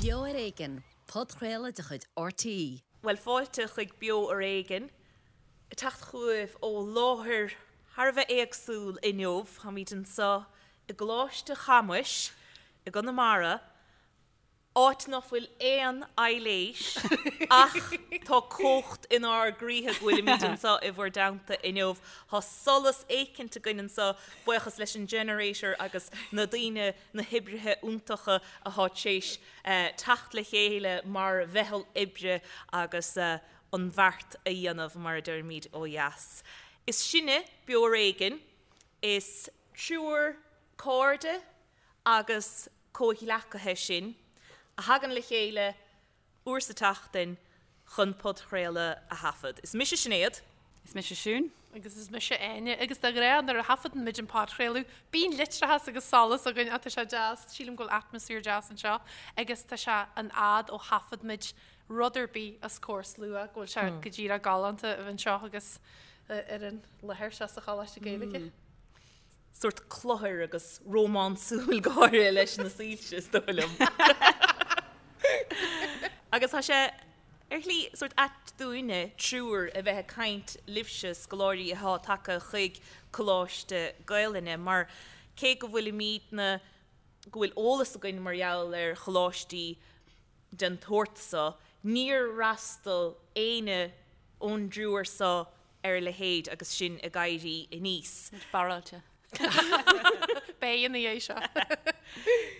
Beo ar Éigean, podchraoladh de chuid RTÉ. Bhuel, fáilte chuig Beo ar Éigean, ag teacht chugaibh ó láthair thar a bheith éagsúil inniu. Táimid anseo i gColáiste Chamuis i gConamara, áit nach bhfuil aon aibhléis ach tá cumhacht inár gcroíthe go bhfuilimid anseo i bhur dteannta inniu. Tá solas éicint againn anseo, buíochas leis an generator agus na daoine, na hoibrithe iontacha atá tar éis teacht le chéile mar mheitheal oibre agus an bheart a dhéanamh, mar a deirimid ó dheas. Is sinne Beo Ar Éigean, is triúr cairde agus comhghleacaithe sinn a thagann le chéile uair sa tseachtain chun podchraoladh a thaifead. Is mise Sinéad. Is mise Siún. Agus is mise Áine. Agus de ghnáth nuair a thaifeadann muid an podchraoladh, bíonn leictreachas agus solas againn ach tá sé deas, sílim go bhfuil atmaisféar deas anseo agus tá sé an fhad ó thaifead muid rud ar bith os comhair slua, go bhfuil sé go díreach galánta a bheith anseo agus ar an láthair seo sa Choláiste Gaeilge. sórt cluthar agus rómánsúil go háirithe leis na soilse, is dóigh liom. Agus tá sé ar shlí sórt ait dúinne, triúr, a bheith ag caint libhse, scoláirí atá tagtha chuig Coláiste Gaelainne, mar cé go bhfuilimidne, go bhfuil eolas againn mar gheall ar choláistí den tsórt so, níor fhreastail éinne ón dtriúr so ar a leithéid agus sinn ag éirí aníos. Muid barráilte. Beidh ina dhiaidh seo.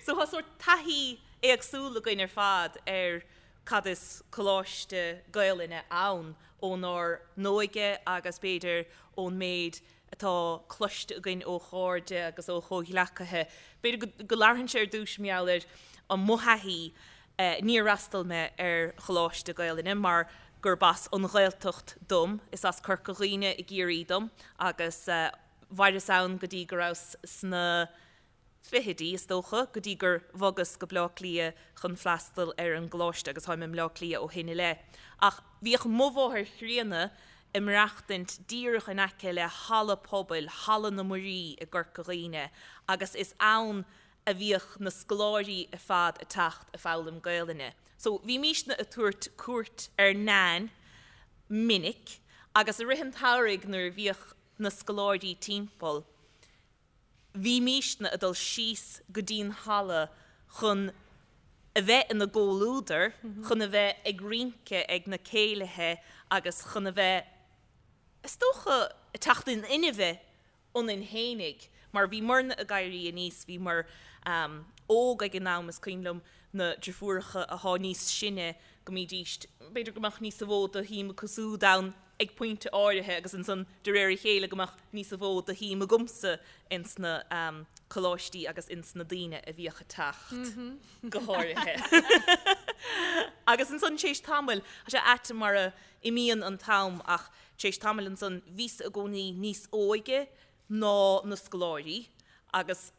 So tá sórt taithí éagsúil againn ar fad ar cad is Coláiste Gaelainne ann ónár n-óige agus b'fhéidir ón méid atá cloiste againn ó chairde agus ó chomhghleacaithe. B'fhéidir go labharfainnse ar dtús mar gheall ar mo thaithí. Níor fhreastail mé ar Choláiste Gaelainne mar gurb as an Ghaeltacht dom, is as Corca Dhuibhne i gCiarraí dom agus mhaireas ann go dtí go rabhas sna fichidí, is dócha, go dtí gur bhogas go Bleá Cliath chun freastal ar an gcoláiste agus táim i mBleá Cliath ó shin i leith. Ach bhíodh mo mháthair chríonna ag maireachtaint díreach in aice le halla pobail, Halla na Muirí i gCorca Dhuibhne agus is ann a bhíodh na scoláirí ar fad ag teacht ag foghlaim Gaelainne. So bhímísne ag tabhairt cuairt ar Nain minic agus i rith an tsamhraidh nuair a bhíodh na scoláirí timpeall, bhímísne ag dul síos go dtí'n halla chun a bheith ina gcomhluadar, chun a bheith ag rince ag na céilithe agus chun a bheith, is dócha, ag teacht in inmhe ionainn fhéinig, mar bhíomarna ag éirí aníos, bhíomar óg ag an am, is cuimhin liom na deirfiúracha athá níos sine, go mbídíst, b'fhéidir go mbeadh níosa mhó de shuim acu súd ann ag pointe áirithe agus ansan de réir a chéile go mbeadh níosa mhó de shuim agamsa ins na coláistí agus ins na daoine a bhíodh ag teacht, go háirithe. Agus ansan tar éis tamaill, tá sé ait mar a imíonn an t-am ach Tar éis tamaill ansan bhíos i gcónaí níos óige ná na scoláirí agus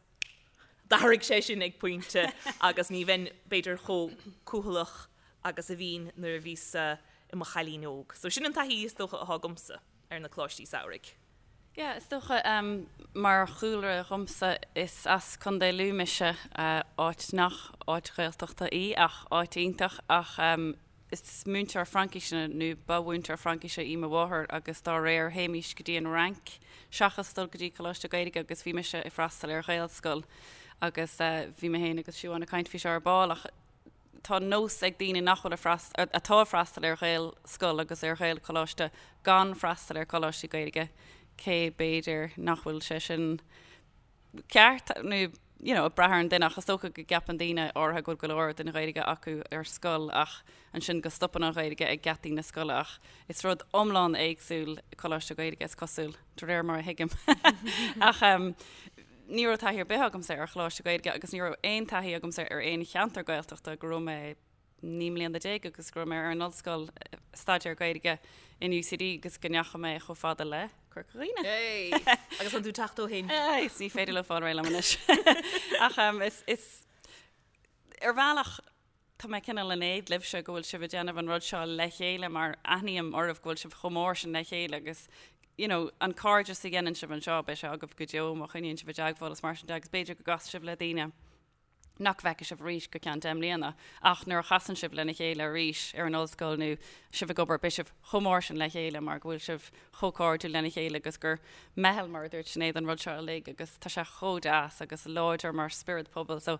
d'athraigh sé sin ag pointe agus ní bheinn b'fhéidir chomh cúthaileach agus a bhínn nuair a bhíos i mo chailín óg. So sin an taithí is dócha atá agamsa ar na coláistí samhraidh. Yeah, is dócha, mar chúlra dhomsa, is as Contae Lú mise, áit nach áit Ghaeltachta í ach áit iontach ach Is múinteoir Fraincíse, nó ba mhúinteoir Fraincíse í mo mháthair agus dá réir théimís go dtí an Fhrainc seachas dul go dtí Coláiste Gaeilge agus bhí mise ag freastal ar Ghaelscoil agus bhí mé féin agus Siobhán ag caint faoi seo ar ball ach tá nós ag daoine nach bhfuil ag freastal, atá ag freastal ar Ghaelscoil agus ar Ghaelcholáiste gan freastal ar Choláistí Gaeilge cé b'fhéidir nach bhfuil sé sin ceart nó you know ag brath ar an duine ach is dócha go gceapann daoine áirithe go bhfuil go leor den Ghaeilge acu ar scoil ach ansin go stopann an Ghaeilge ag geataí na scoile ach is rud iomlán éagsúil Coláiste Gaeilge is cosúil de réir mar a thuigim ach um, ní raibh taithí ar bith agamsa ar Choláiste Gaeilge agus ní raibh aon taithí agamsa ar aon cheantar Gaeltachta go raibh mé 19 mbliana agus go raibh mé ar an ollscoil staidéar Gaeilge in UCD agus go ndeachaigh mé chomh fada le Corca Dhuibhne. Hey! Agus an tú teacht ó shin? Is ní féidir leo fáil réidh liom anois. Ach um, is, is ar bhealach tá mé cineál in éad libhse go bhfuil sibh ag déanamh an rud seo le chéile mar aithním oraibh go bhfuil sibh chomh mór sin le chéile agus you know, an cairdeas a dhéanann sibh anseo beidh sé agaibh go deo má choinníonn sibh i dteagmháil is mar sin de agus b'fhéidir go gcasfaidh sibh le daoine. nach bhfeicfidh sibh arís go ceann 10 mbliana, ach nuair a chasann sibh lena chéile arís ar an ollscoil nó sibh ag obair, beidh sibh chomh mór sin le chéile mar go bhfuil sibh chomh cairdiúil lena chéile agus gur meitheal, mar a dúirt Sinéad, an rud seo uilig agus tá sé chomh deas agus láidir mar spiorad pobail. So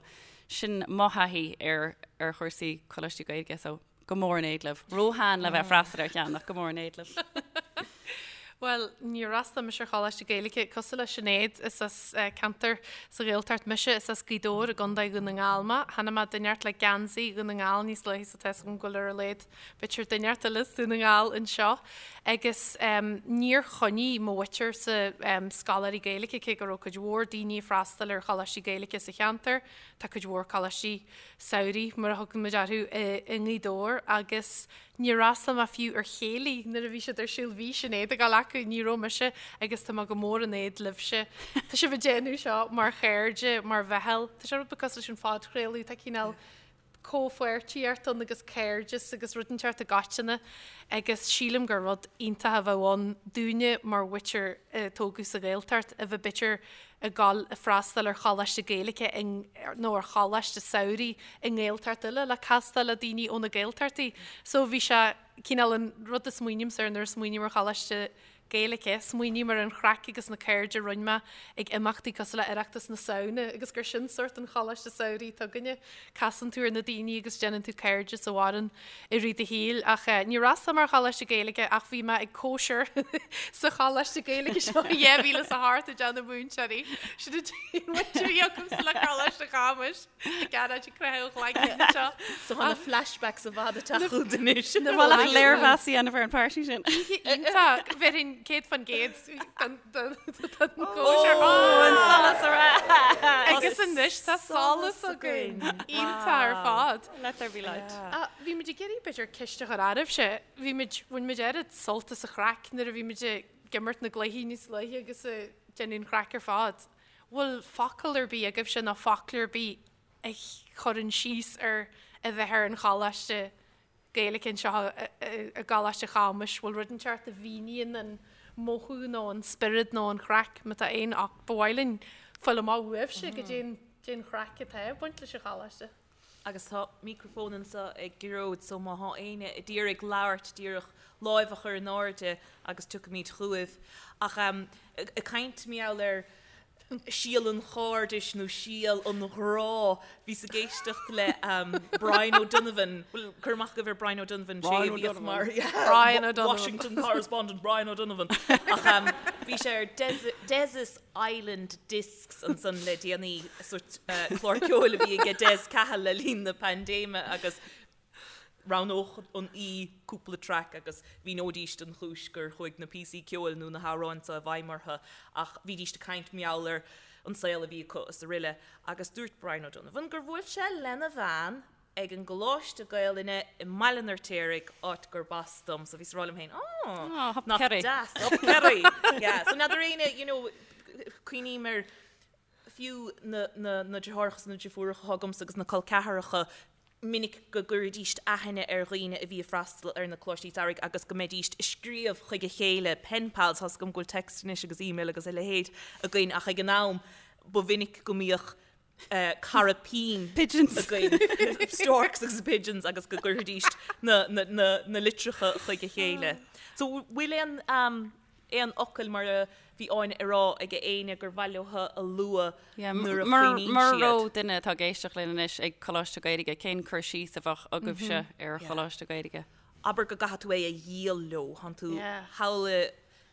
sin mo thaithí ar ar chúrsaí coláistí Gaeilge so go mór in éad libh. Róshean le bheith ag freastal ar cheann ach go mór in éad libh. Bhuel, níor fhreastail mise ar Choláiste Gaeilge cosúil le Sinéad, is as ceantar sa Ghaeltacht mise, is as Gaoth Dobhair i gContae Dhún na nGall mé. Chonaic mé duine inteacht le geansaí Dhún na nGall níos luaithe so tá 'fhios agam go bhfuil ar a laghad b'fhéidir duine inteacht eile as Dún na nGall anseo. Agus níor choinnigh mo mhuintirse scoláirí Gaeilge cé go raibh cuid mhór daoine ag freastal ar choláistí Gaeilge sa cheantar. Tá cuid mhór coláistí samhraidh, mar a thugann muid orthu, i nGaoth Dobhair agus Níor fhreastail mé fiú ar chéilí nuair a bhí siad ar siúl, bhí Sinéad ag dul acu, ní raibh mise agus tá mé go mór in éad libhse. Tá sibh ag déanamh seo mar chairde, mar mheitheal, tá sé rud beag cosúil leis an phodchraoladh, tá cineál comhpháirtíocht ann agus cairdeas agus rud inteacht i gcoitinne agus sílim gur rud iontach a bheadh ann dúinne mar mhuintir a tógadh sa Ghaeltacht a bheith b'fhéidir ag dul ag freastal ar choláiste Gaeilge nó ar choláiste samhraidh i nGaeltacht eile le castáil le daoine ó na Gaeltachtaí. So bhí sé cineál an rud a smaoinímse air nuair a smaoiním ar choláiste Gaeilge, smaoiním ar an chraic agus na cairde a rinne mé ag imeachtaí cosúil le Oireachtas na Samhna agus gur sin sórt an choláiste samhraidh atá againne. Casann tú ar na daoine agus déanann tú cairdeas a mhaireann i rith do shaoil. Ach níor fhreastail mé ar choláiste Gaeilge ach bhí mé ag cóisir sa choláiste Gaeilge seo i 2008 i dteannta múinteoirí. Sin an t-aon bhaint a bhí agamsa le Coláiste Chamuis ag gearáid ag croitheadh an chloigne anseo. So tá na flashbacks i bhfad ag teacht chugat anois. Ba mhaith leat léirmheas a dhéanamh ar an party sin. Oíche iontach. Bhéarfainn 100% don chóisir. Ó, an solas ar ais! Agus anois tá solas againn. Iontach ar fad. Let there be light. Bhí muid ag iarraidh b'fhéidir ceist a chur oraibhse. Bhí muid, bhain muid oiread sult as an chraic nuair a bhí muid ag imirt na gcluichí níos luaithe agus ag déanamh an chraic ar fad. Bhfuil focal ar bith agaibhse nó foclóir ar bith a chuireann síos ar a bheith ar an choláiste Gaeilge anseo i gColáiste Chamuis? Bhfuil rud inteacht a mhíníonn an mothú nó an spiorad nó an chraic, má tá aon ach ba mhaith linn fáil amach uaibhse goidé an chraic atá ag baint leis an choláiste. Agus tá micreafón anseo ag Gearóid so má thá éinne a d'iarraidh labhairt díreach láimh a chur in airde agus tiocfaimid chugaibh. Ach ag caint mar gheall ar síol an chairdis nó síol an ghrá, bhíos ag éisteacht le Brian O'Donovan, bhfuil cur amach agaibh ar Brian O'Donovan, sé a bhíodh mar Brian O'Donovan. Washington correspondent Brian O'Donovan. Ach bhí sé ar Des's Island Discs ansan le déanaí, sórt clár ceoil a bhí aige Des Cahill le linn na paindéime agus roghnódh an aoi cúpla traic agus mhíneoidíst an chúis gur chuaigh na píosaí ceoil nó na hamhráin seo i bhfeidhm orthu ach bhídíst ag caint mar gheall ar an saol a bhí acu is aroile agus dúirt Brian O'Donovan gur bhuail sé lena bhean ag an gColáiste Gaelainne i mBaile an Fheirtéaraigh, áit gurb as dom, so bhíos ag rá liom féin, oh, nach deas, up Kerry! Yeah, so n'fheadar éinne, you know, cuimhním ar fiú na, na, na deartháireacha is na deirfiúracha atá agamsa agus na col ceathracha, minic go gcuiridíst aithne ar dhaoine a bhí ag freastal ar na coláistí samhraidh agus go mbeidíst ag scríobh chuig a chéile, pen pals, tá's agam go bhfuil text anois agus email agus a leithéid againn ach ag an am ba mhinic go mbíodh cara pinn againn, storks agus pigeons agus go gcuirfidís na litreacha chuig a chéile. So bhfuil aon aon fhocail mar a bhí Áine ag rá ag éinne gur mhaith leo a lua nuair a chuimhníonn siad? Mura raibh duine atá ag éisteacht linn anois ag Coláiste Gaeilge, cén cur síos a bheadh agaibhse ar Choláiste Gaeilge? Abair go gcaithfidh tú é a dhíol leo, thánn tú thall i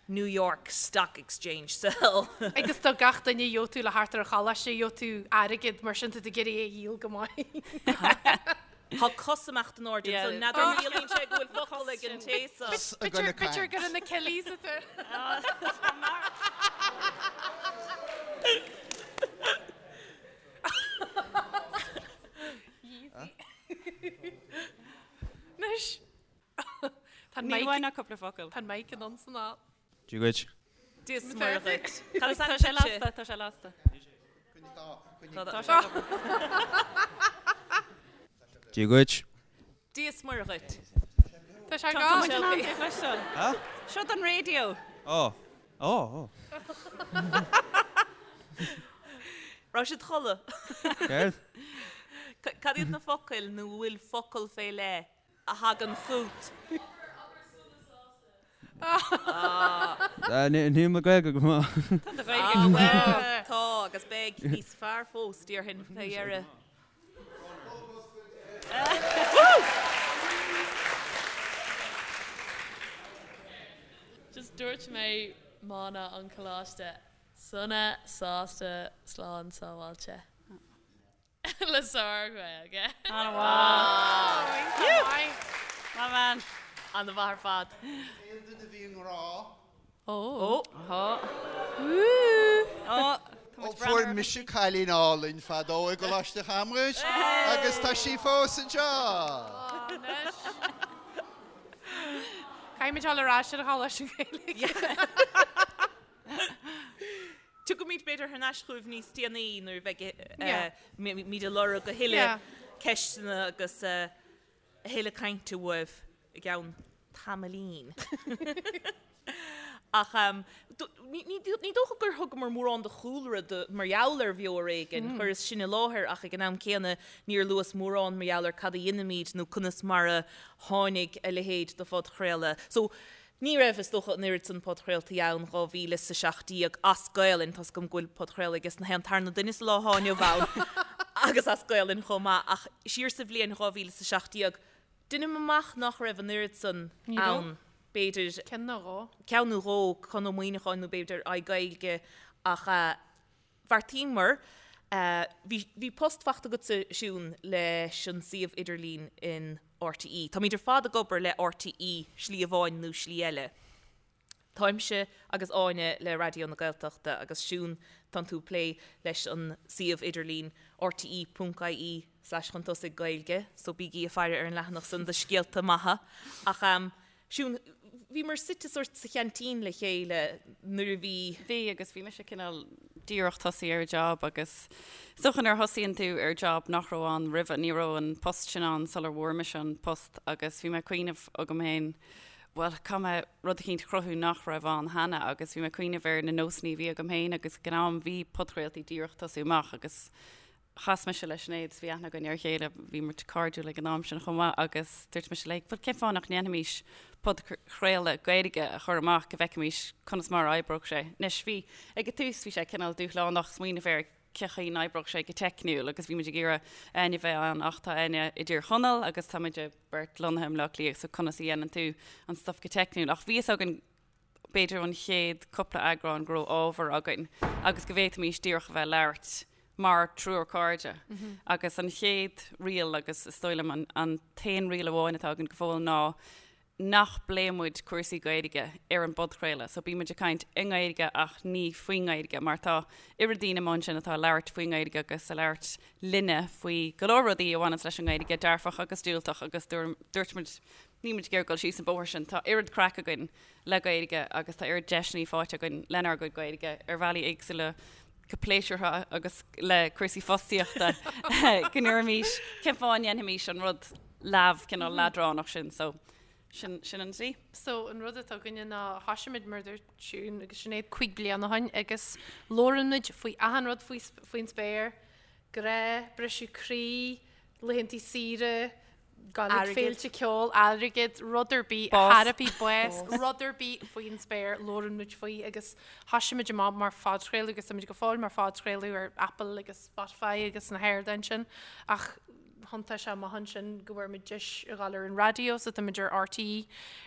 New York Stock Exchange sell. Agus do gach duine gheobhaidh tú le theacht ar an choláiste, gheobhaidh tú airgead, mar sin tá tú ag iarraidh é a dhíol go maith. Tá cos amach in airde anso, n'fheadar an gciallaíonn sé go bhfuil focal ag an té so. B'fhéidir gur in na Killies atá. Anois. Tá an Ní mic bhain ach cúpla focal. Tá an mic in ann san ál. Dia dhuit. Dia is Muire dhuit. Cad is Tá ainm sé duitse? lasta, tá sé lasta. Tá sé ag obair. Dia dhuit. Dia is Muire dhuit. Tá sé Tá gone. muid in ann é a chloisteáil. Seo don raidió. Ó. Ó, ó. Raibh siad chodladh. Céard? Cad iad na focail nó an bhfuil focal fé leith a thagann chugat? Níl mo Ghaeilge go maith. Tá do Ghaeilge go maith. Tá, agus beidh níos fearr fós, déarfainn, fé dheireadh. Just dúirt mé mana an choláiste, sona, sásta, slán sábháilte. Le sár-Ghaeilge. An-mhaith. Maith bean. An-mhaith ar fad. Aon duine a bhí i ngrá? Ó. Ó. Ó fuair mise cailín álainn fadó i gColáiste Chamrais agus tá sí fós anseo! Caithfimid dul ar ais ar an Choláiste Gaeilge. Tiocfaimid b'fhéidir thar n-ais chugaibh níos déanaí nuair a bheidh muid ag lorg a thuilleadh ceisteanna agus a thuilleadh cainte uaibh i gceann tamaillín. Ach ní dócha gur thugamar mórán de chúlra mar gheall ar Bheo ar Éigean. Chuireas sin i láthair ach ag an am céanna níor luas mórán mar gheall ar cad a dheinimid nó conas mar a tháinig a leithéid de phodchraoladh. So, Ní raibh, is dócha, an oiread san podchraoltaí ann 2017 as Gaelainn, tá's agam go bhfuil podchraoladh aige na haon tarna duine sa lá atá inniu ann agus as Gaelainn chomh maith, ach siar sa bhliain 2017, deinim amach nach raibh an oiread san ann, b'fhéidir. Ceann nó dhó. Ceann nó dhó, Conn Ó Muíneacháin nó b'fhéidir iGaeilge, ach. Bheartaíomar, bhí, bhí post faighte agatsa, Siún, leis an suíomh idirlín in RTÉ. Táimid ar fad ag obair le RTÉ slí amháin nó slí eile. Táimse agus Áine le Raidió na Gaeltachta agus Siún, tánn tú ag plé leis an suíomh idirlín rte ponc ie slash chun tosaigh Gaeilge, so bígí ag faire ar an leathanach san do scéalta maithe. Ach Siún, bhíomar suite sórt sa cheaintín le chéile nuair a bhí. Bhí, agus bhí mise cineál díreach tosaí ar job agus is dócha nuair a thosaíonn tú ar job nach raibh ann roimhe, ní raibh an post sin ann sular bhfuair mise an post agus bhí mé ag cuimhneamh agam féin, bhuel, caithfidh mé rud eicínt a chruthú nach raibh ann cheana agus bhí mé ag cuimhneamh ar na nósanna a bhí agam féin agus ag an am bhí podchraoltaí díreach tosú amach agus Chas mise le Sinéad is bhí aithne againn ar a chéile, bhí muid cairdiúil ag an am sin chomh maith agus dúirt mise léi, bhuel cén fáth nach ndéanfaimis podchraoladh Gaeilge a chur amach go bhfeicfimis conas mar a oibreodh sé. Anois bhí, ag an tús bhí sé cineál dúshlánach smaoineamh ar cé chaoi n-oibreodh sé go teicniúil agus bhí muid ag iarraidh Áine a bheith ann ach tá Áine i dTír Chonaill agus tá muid beirt lonnaithe i mBleá Cliath so conas a dhéanann tú an stuff go teicniúil ach bhí fhios againn b'fhéidir ón chéad cúpla eagrán go raibh ábhar againn agus go bhféadfaimis díreach a bheith ag labhairt mar triúr cairde. Agus an chéad riail agus is dóigh liom an t-aon riail amháin atá againn go fóill ná nach bpléann muid cúrsaí Gaeilge ar an bpodchraoladh. So bíonn muid ag caint i nGaeilge ach ní faoin nGaeilge mar tá oiread daoine amuigh ansin atá ag labhairt faoin nGaeilge agus ag labhairt linne faoi go leor rudaí a bhaineanns leis an nGaeilge, dearfach agus diúltach agus dúirt muid Níl muid ag iarraidh dul síos an bóthar sin. Tá oiread craic againn le Gaeilge agus tá oiread deiseanna faighte againn lenár gcuid Gaeilge ar bhealaí éagsúla go pléisiúrtha agus le cúrsaí fostaíochta go ndéarfaimis cén fáth a ndéanfaimis an rud leamh cineál leadránach sin. So sin sin an tslí. So an rud atá againne ná thoisigh muid mar a dúirt Siún agus Sinéad 5 bliana ó shin agus labhrann muid faoi achan rud faoi faoin spéir, grá, briseadh croí, laethanta saoire, Gabháil ag féilte ceoil, airgead, rud ar bith, teiripí, bás, rud ar bith faoin spéir, labhrann muid faoi agus thoisigh muid amach mar phodchraoladh agus táimid go fóill mar phodchraoladh ar Apple agus Spotify agus na hardáin sin ach thiontaigh sé amach ansin go bhfuair muid deis a ghabháil ar an raidió so táimid ar RTÉ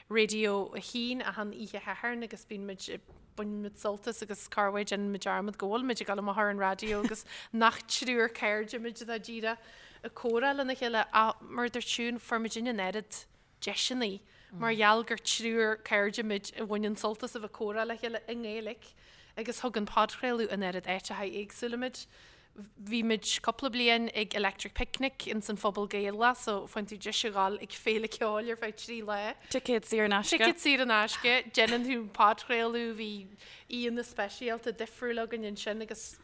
Radio 1 achan oíche Shathairn agus bíonn muid baineann muid sult as agus corruair déanann muid dearmad go bhfuil muid ag dul amach ar an raidió agus nach triúr cairde muid atá díreach ag comhrá lena chéile ach mar a dúirt Siún, fuair muidinne an oiread deiseanna mar gheall gur triúr cairde muid a bhaineann sult as a bheith ag comhrá le chéile i nGaeilge agus thug an podchraoladh an oiread áiteacha éagsúla muid. Bhí muid cúpla bliain ag Electric Picnic ins an Phuball Gaelach so faigheann tú deis a ghabháil ag féile ceoil ar feadh 3 lá. Ticéad saor in aisce. Ticéad saor in aisce. Déanann tú podchraoladh, bhí aíonna speisialta difriúil againn ansin agus.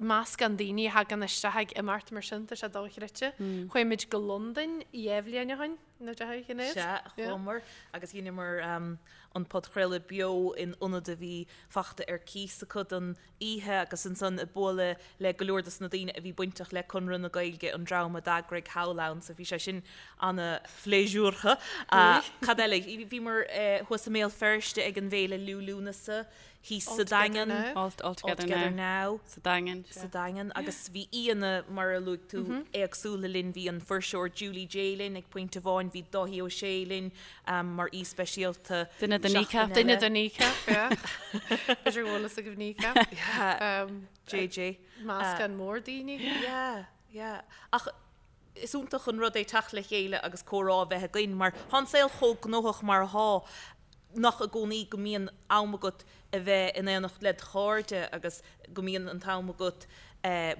Meascán daoine a thagann isteach ag imeacht mar sin, tá sé dochreidte. Chuaigh muid go Londain 2 bhliain ó shin, nó deich Shinéad? Sea, chuamar agus dheineamar an podchraoladh beo in ionad a bhí fachta ar cíos acu don oíche agus ansan ag bualadh le go leor dos na daoine a bhí bainteach le Conradh na Gaeilge, an dream a d'eagraigh thall ann, so bhí sé sin ana-phléisiúrtha. Cad eile? Bhíomar thuas i mBéal Feirste ag an bhFéile Liú Lúnasa thíos sa Daingean. All Together Now. Sa Daingean. Sa Daingean. Agus bhí aíonna, mar a luaigh tú, éagsúla linn. Bhí an fuirseoir Julie Jay linn ag pointe amháin, bhí Dáithí Ó Sé linn mar aoi speisialta. Duine de Kneecap. Duine de Kneecap, yeah. B'fhéidir go bhfuil fhios agaibh Kneecap. Yeah. JJ. Meascán mór daoine. Yeah, yeah. Ach is iontach an rud é teacht le chéile agus comhrá a bheith againn mar tá an saol chomh gnóthach mar atá nach i gcónaí go mbíonn am agat a bheith in éineacht led chairde agus go mbíonn an t-am agat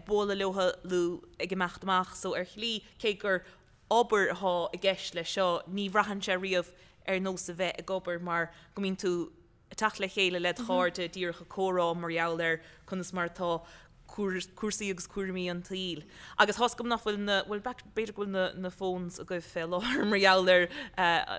bualadh leo nó ag imeacht amach so ar shlí cé gur obair atá i gceist leis seo ní bhraitheann sé riamh ar nós a bheith ag obair mar go mbíonn tú ag teacht le chéile led chairde díreach ag comhrá mar gheall ar conas mar atá cúrsaí agus cúraimí an tsaoil. Agus tá's agam nach bhfuil na, bhuel b'fhéidir go bhfuil na na phones agaibh fé láthair mar gheall ar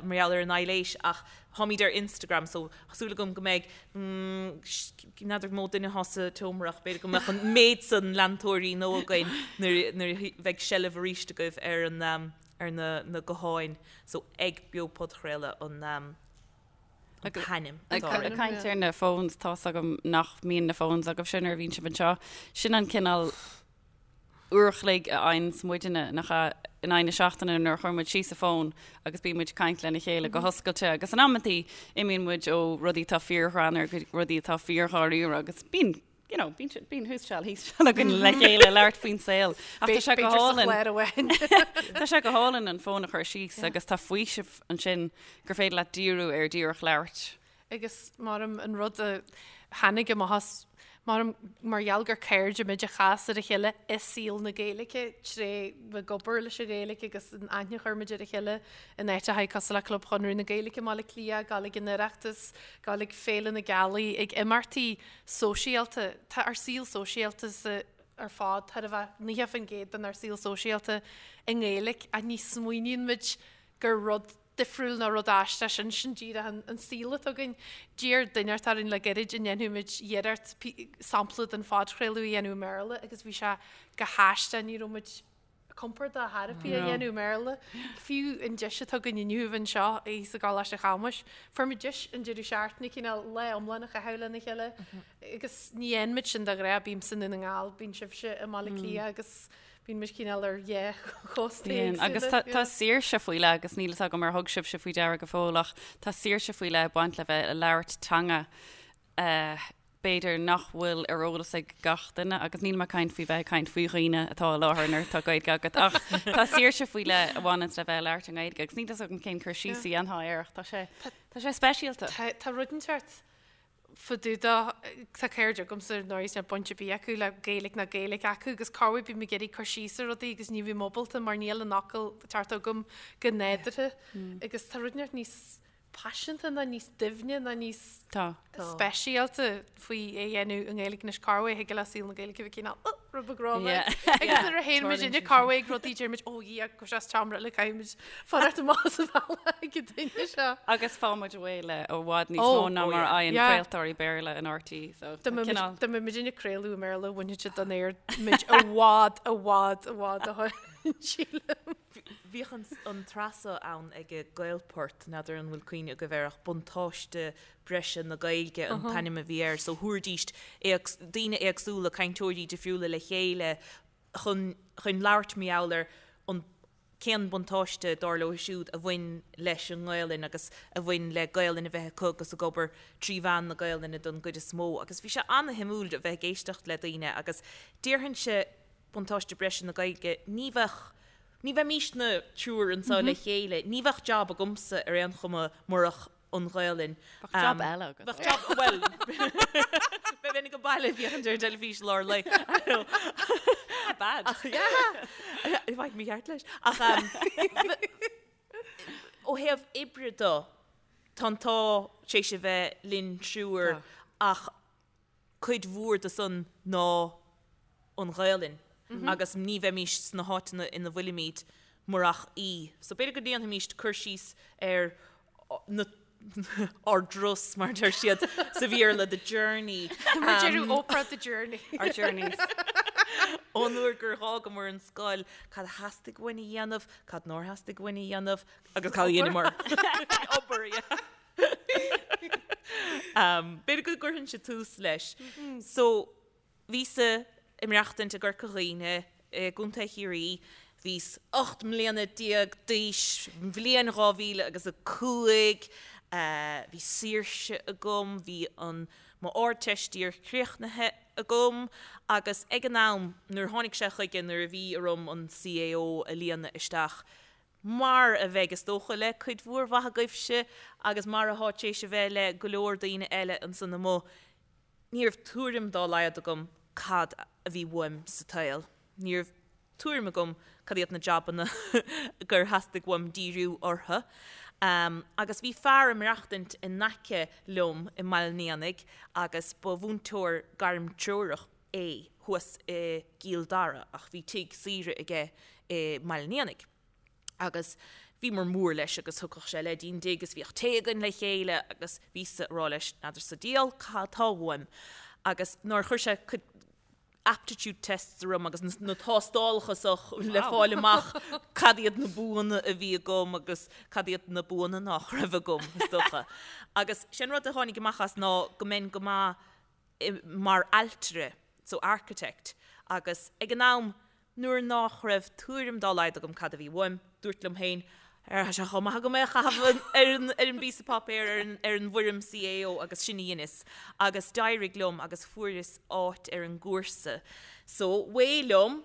mar gheall ar an aibhléis ach táimid ar Instagram so tá súil agam go mbeidh, n'fheadar mó duine atá sa tseomra ach b'fhéidir go mbeadh an méid san leantóirí nó againn nuair nuair a bheidh seilbh arís agaibh ar an ar na na gutháin so ag Beo Podchraoladh an an t-ainm atá orainn. Ag caint ar na phones, tá's agam nach mbíonn na phones agaibhse nuair a bhíonn sibh anseo. Sin an cineál uair a chloig a fhaigheanns muidne, nach ea, in aghaidh na seachtaine nuair a chuireann muid síos an fón agus bíonn muid ag caint lena chéile go hoscailte agus in amantaí imíonn muid ó rudaí atá fíorghreannmhar go rudaí atá fíordháiríre agus bíonn you know, bíonn sé- bíonn thuas seal thíos seal againn le chéile labhairt faoin saol. Ach tá sé go B'fhéidir sa hálainn. chlár amháin. Tá sé go hálainn an fón a chur síos agus tá faoiseamh ansin gur féidir leat díriú ar díreach labhairt. Agus maram an rud a tháinig amach as, maram mar gheall gur cairde muid a chas ar a chéile i saol na Gaeilge tré bheith ag obair leis an Ghaeilge agus an aithne a chuir muid ar a chéile in áiteacha cosúil le Club Chonradh na Gaeilge i mBaile Átha Cliath, gabháil ag an Oireachtas, gabháil ag Féile na Gealaí, ag imeachtaí sóisialta. Tá ár saol sóisialta sa ar fad thar a bheith 90% den ár saol sóisialta i nGaeilge ach ní smaoiníonn muid gur rud difriúil nó rud aisteach sin, sin díreach an an saol atá againn. D'iarr duine inteacht orainn le gairid an ndéanfadh muid iarracht sampla den phodchraoladh a dhéanamh i mBéarla agus bhí sé go haisteach, ní raibh muid compordach thar a bith a dhéanamh i mBéarla. Fiú an deis atá againn inniu anseo thíos i gColáiste Chamuis, fuair muid deis an deireadh seachtaine cineál lá iomlán a chaitheamh lena chéile agus ní dhéanann muid sin de ghnáth, bímse i nDún na nGall, bíonn sibhse i mBaile Átha Cliath agus bíonn muid cineál ar dhá chósta Bíonn, agus éagsúla. tá saoirse faoi leith agus níl fhios agam ar thug sibhse faoi deara go fóill ach tá saoirse faoi leith ag baint le bheith ag labhairt teanga b'fhéidir nach bhfuil ar eolas ag gach duine, agus níl mé ag caint faoi bheith ag caint faoi dhaoine atá i láthair nuair atá Gaeilge agat, ach tá saoirse faoi leith a bhaineanns le bheith ag labhairt i nGaeilge, agus níl fhios agam cén cur síos a dhéanfá air ach tá sé, tá sé speisialta. Tá, tá rud inteacht fá dtaobh de, tá cairde agamsa ar ndóigh níl baint ar bith acu le Gaeilge ná Gaeilge acu agus corruair bím ag iarraidh cur síos ar rudaí agus ní bhím ábalta mar níl an fhocal ceart agam go nádúrtha agus tá rud inteacht níos paiseanta ná níos doimhne ná níos speisialta faoi é a dhéanamh i nGaeilge anois corruair thig le saol na Gaeilge a bheith cineál oh rud beag rómhar agus nuair a théann muid inne corruair ag rudaí deir muid ó Dhia go sé as seomra eile caithfidh muid fanacht amach as an bhealach ag an duine seo. Agus fághann muid away le i bhfad níos mó ná mar a fhaigheann craoltóirí Béarla in RTÉ so Dá mbeadh muid ag craoladh i mBéarla bhainfeadh siad den aer muid i bhfad i bhfad i bhfad ó shin sílim. Bhíodh an tsraith seo ann ag Gaelport, n'fheadar an bhfuil cuimhne agaibh air ach Buntáiste Breise na Gaeilge an t-ainm a bhí air. So thabhairdís daoine éagsúla, cainteoirí difriúla le chéile chun chun labhairt mar gheall ar an cén buntáiste dar leo siúd a bhain leis an nGaelainn agus a bhain le Gaelainn a bheith acu agus ag obair trí mheán na Gaelainne don gcuid is mó. Agus bhí sé ana-shuimiúil a bheith ag éisteacht le daoine agus déarfainnse buntáiste breise na Gaeilge, ní bheadh, ní bheimísne triúr anseo le chéile, ní bheadh jab agamsa ar aon chuma murach an Ghaelainn. Bheadh jab eile agat. Bheadh jab, bhuel, bheinn ag baile ag féachaint ar an teilifís lár lae. Not bad. Ach, yeah, bheadh mé ceart leis. Ach ó thaobh oibre de, tá an t-ádh tar éis a bheith linn triúr ach cuid mhór de san ná. an Ghaelainn agus ní bheimís sna háiteanna ina bhfuilimid murach í. So b'fhéidir go ndéanfaimíst cur síos ar na ár dturas, mar a deir siad sa Bhéarla, the journey. Mar a deireadh Oprah, the journey. Our journeys. Ón uair gur dh'fhágamar an scoil, cad a theastaigh uainn a dhéanamh, cad nár theastaigh uainn a dhéanamh, agus cad a dheineamar. Obair, yeah. B'fhéidir go gcuirfinnse tús leis. So, Bhíos-sa ag maireachtaint i gCorca Dhuibhne i gContae Chiarraí. Bhíos 18 mbliana d'aois, bhliain 2000 agus 5. Bhí saoirse agam, bhí an mo Ardteist díreach críochnaithe agam agus ag an am nuair a tháinig sé chuige nuair a bhí orm an CAO a líonadh isteach, mar a bheidh is dócha le cuid mhór mhaith agaibhse agus mar athá tar éis a bheith le go leor daoine eile ansan amuigh, Ní raibh tuairim dá laghad agam cad a bhí uaim sa tsaol. Ní raibh tuairim agam cad iad na jabanna gur theastaigh uaim díriú orthu. Agus bhí fear ag maireachtaint in aice liom i mBaile an Éanaigh agus ba mhúinteoir gairmtreorach é thuas i gCill Dara ach bhí tigh saoire aige i mBaile an Éanaigh. agus bhíomar mór leis agus thugadh sé leis dtí'n dtigh agus bhíodh tae againn le chéile agus bhíos-sa ag rá leis, n'fheadar sa diabhal cad tá uaim agus nuair a chuir sé cuid aptitude tests orm agus na tástálacha so le fáil amach cad iad na buanna a bhí agam agus cad iad na buanna nach raibh agam, is dócha. Agus sé an rud a tháinig amach as ná go mbeinn go maith mar ailtire, so architect, agus ag an am Nuair nách raibh tuairim dá laghad agam cad a bhí uaim, dúrt liom féin, Tá sé chomh maith agam é a chaitheamh ar an bpíosa páipéir, ar an bhfoirm CAO agus sin a dheineas. Agus d'éirigh liom agus fuaireas áit ar an gcúrsa. So, away liom,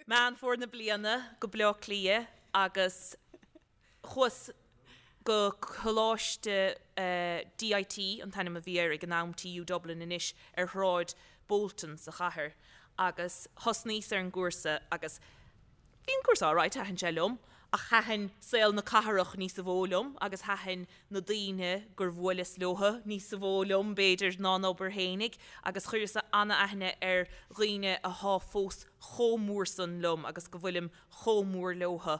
Meán Fómhair na bliana go Bleá Cliath agus Chuas go Coláiste DIT, an t-ainm a bhí air ag an am, TU Dublin anois, ar Shráid Bolton sa chathair agus thosnaíos ar an gcúrsa agus bhí an cúrsa alright, thaitin sé liom ach thaitin saol na cathrach níosa mhó liom agus thaitin na daoine gur bhuaileas leothu níosa mhó liom b'fhéidir ná an obair fhéinig agus chuireas an-aithne ar dhaoine athá fós chomh mór san liom agus go bhfuilim chomh mór leothu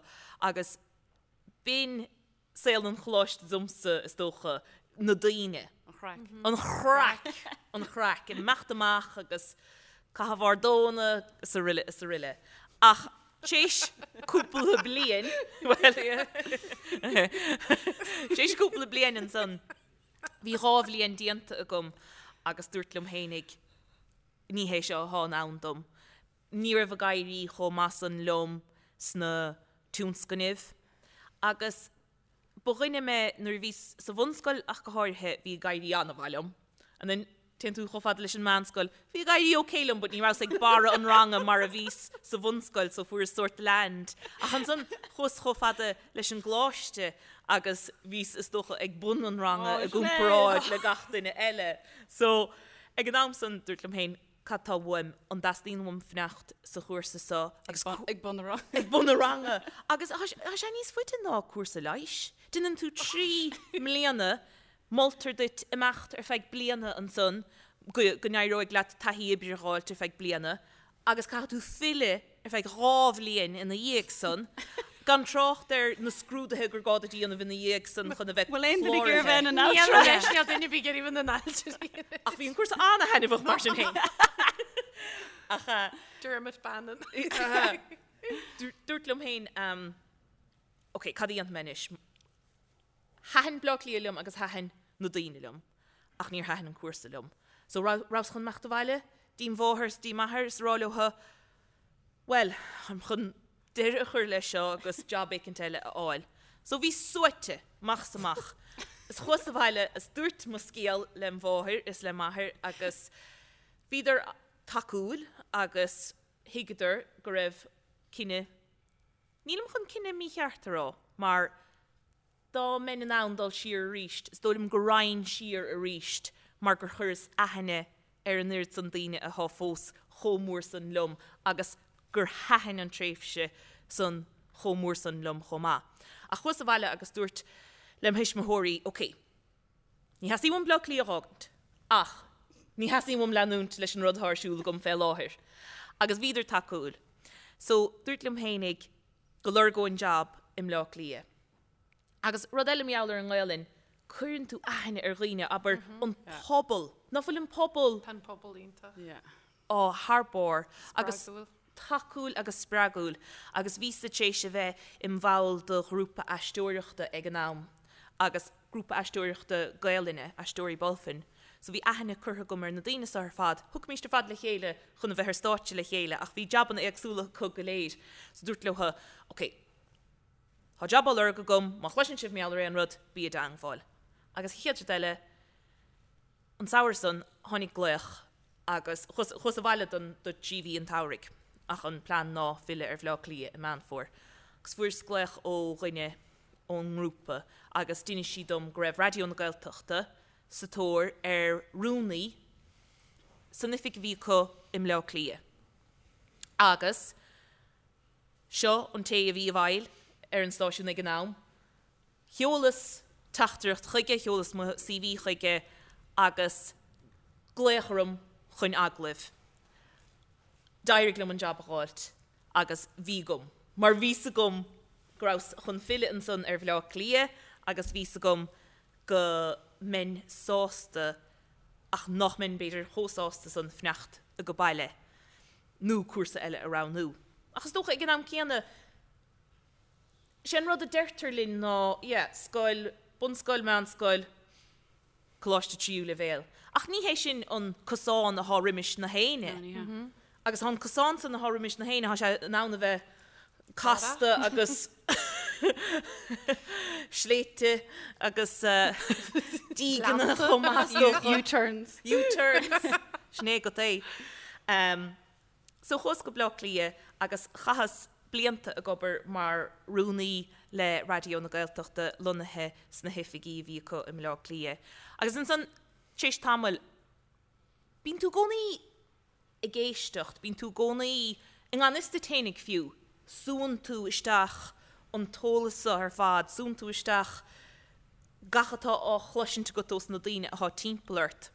agus b'in saol an choláiste domsa, is dócha, na daoine. An chraic. An chraic! An chraic. Imeacht amach agus caitheamh ár dtóna is aroile is aroile. Ach t'éis cúpla bliain, bhuel, t'éis cúpla bliain ansan, bhí dhá bhliain déanta agam agus dúrt liom fhéinig, ní hé seo athá in ann dom. Ní raibh ag éirí chomh maith san liom sna tionscnaimh agus ba dhuine mé nuair a bhíos sa bhunscoil ach go háirithe, bhí ag éirí an-mhaith liom. And then téann tú chomh fada leis an meánscoil, bhí ag éirí ok liom but ní rabhas ag barra an ranga mar a bhíos sa bhunscoil so fuaireas sórt land. Ach ansan chuas chomh fada leis an gcoláiste agus bhíos is dócha ag bun an ranga i gcomparáid le gach duine eile. So ag an am san dúirt liom féin, cad tá uaim, an dteastaíonn uaim fanacht sa chúrsa seo agus Ag bun an ranga. Ag bun an ranga. Agus tá sé níos faide ná cúrsa leighis. Déanann tú 3 mbliana, moltar duit imeacht ar feadh bliana ansan go go n-éireoidh leat taithí oibre a dh'fháilt ar feadh bliana agus caithfidh tú filleadh ar feadh 2 bhliain ina dhiaidh san, gan trácht ar na scrúduithe gur gá duit a dhéanamh ina dhiaidh san chun a bheith Bhfuil aon duine ag iarraidh a bheith ina n-ailtire? Níl duine ar bith ag iarraidh a bheith ina n-ailtire. Ach bhí an cúrsa an-thaitneamhach mar sin féin. Ach Dermot Bannon. Dúrt liom féin, ok, cad a dhéanfaidh mé anois? Thaitin Bleá Cliath liom agus thaitin na daoine liom ach níor thaitin an cúrsa liom. So rabhas chun imeacht abhaile dtí mháthair is dtí m'athair is a rá leothu, bhuel, táim chun deireadh a chur leis seo agus job éicint eile a fháil. So bhíos suaite, amach is amach. Is chuas abhaile is dúirt mo scéal lem mháthair is le m'athair agus bhíodar tacúil agus thuigeadar go raibh cinneadh, nílim chun cinneadh mícheart a rá mar Dá mbeinn in ann dul siar arís, is dóigh liom go raghainn siar arís mar gur chuireas aithne ar an oiread san daoine athá fós chomh mór san liom agus gur thaitin an tréimhse san chomh mór san liom chomh maith. Ach chuas abhaile agus dúirt lem thuismitheoirí, ok, ní theastaíonn uaim Bleá Cliath a dh'fhágaint ach. Ní theastaíonn uaim leanúint leis an rud atá ar siúl agam fé láthair. Agus bhíodar tacúil. So, dúirt liom fhéinig go lorgóinn jab i mBleá Cliath. Agus rud eile mar gheall ar an nGaelainn, cuireann tú aithne ar dhaoine, abair, an pobal. Ná fuil an pobal. Tá an pobal iontach. Yeah. Á, thar barr. Agus Spreagúil. tacúil agus spreagúil. Agus bhíos-sa tar éis a bheith im bhall de ghrúpa aisteoireachta ag an am agus grúpa aisteoireachta Gaelainne, Aisteoirí Bulfin. So bhí aithne curtha agam ar na daoine seo ar fad. Thiocfaimíst ar fad le chéile chun a bheith ar stáitse le chéile ach bhí jabanna éagsúla acu go léir. So dúrt leo, ok, tá jab á lorg agam, má chloiseann sibh mar gheall ar aon rud, bí i dteangmháil. Agus an chéad rud eile, an samhradh san, tháinig glaoch agus chuas, chuas abhaile don, do thrí mhí an tsamhraidh ach an plean ná filleadh ar Bhleá Cliath i Meán Fómhair. Agus fuaireas glaoch ó dhuine ón ngrúpa agus d'inis sí dom go raibh Raidió na Gaeltachta sa tóir ar rúnaí san oifig a bhí acu i mBleá Cliath. Agus seo an té a bhí i bhfeighil ar an stáisiún ag an am. Sheolas teachtaireacht chuige, sheolas mo CV chuige agus glaoch orm chun agallaimh. D'éirigh liom an jab a dh'fháilt agus bhí agam, mar bhí 's agam go rabhas chun filleadh ansan ar Bhleá Cliath agus bhí 's agam go mbeinn sásta ach nach mbeinn b'fhéidir chomh sásta san fanacht age baile nó cúrsa eile a roghnú. Ach is dócha ag an am céanna, sé an rud a deirtear linn ná yeah, scoil, bunscoil, meánscoil, coláiste tríú leibhéal. Ach ní hé sin an cosán athá roimis na héinne. Agus tá an cosán san athá roimis na héinne, tá sé in ann a bheith casta agus sléibhte agus dígeanna chomh maith is dócha. U-turns. U-turns. Sin é agat é. So chuas go Bleá Cliath agus chaitheas blianta ag obair mar rúnaí le Raidió na Gaeltachta lonnaithe sna hoifigí a bhí acu i mBleá Cliath. Agus ansan, tar éis tamaill, bíonn tú i gcónaí ag éisteacht, bíonn tú i gcónaí, i ngan fhios duit fhéinig fiú, súann tú isteach an t-eolas so ar fad, súann tú isteach gach atá á chloisint agat ós na daoine athá timpeall ort.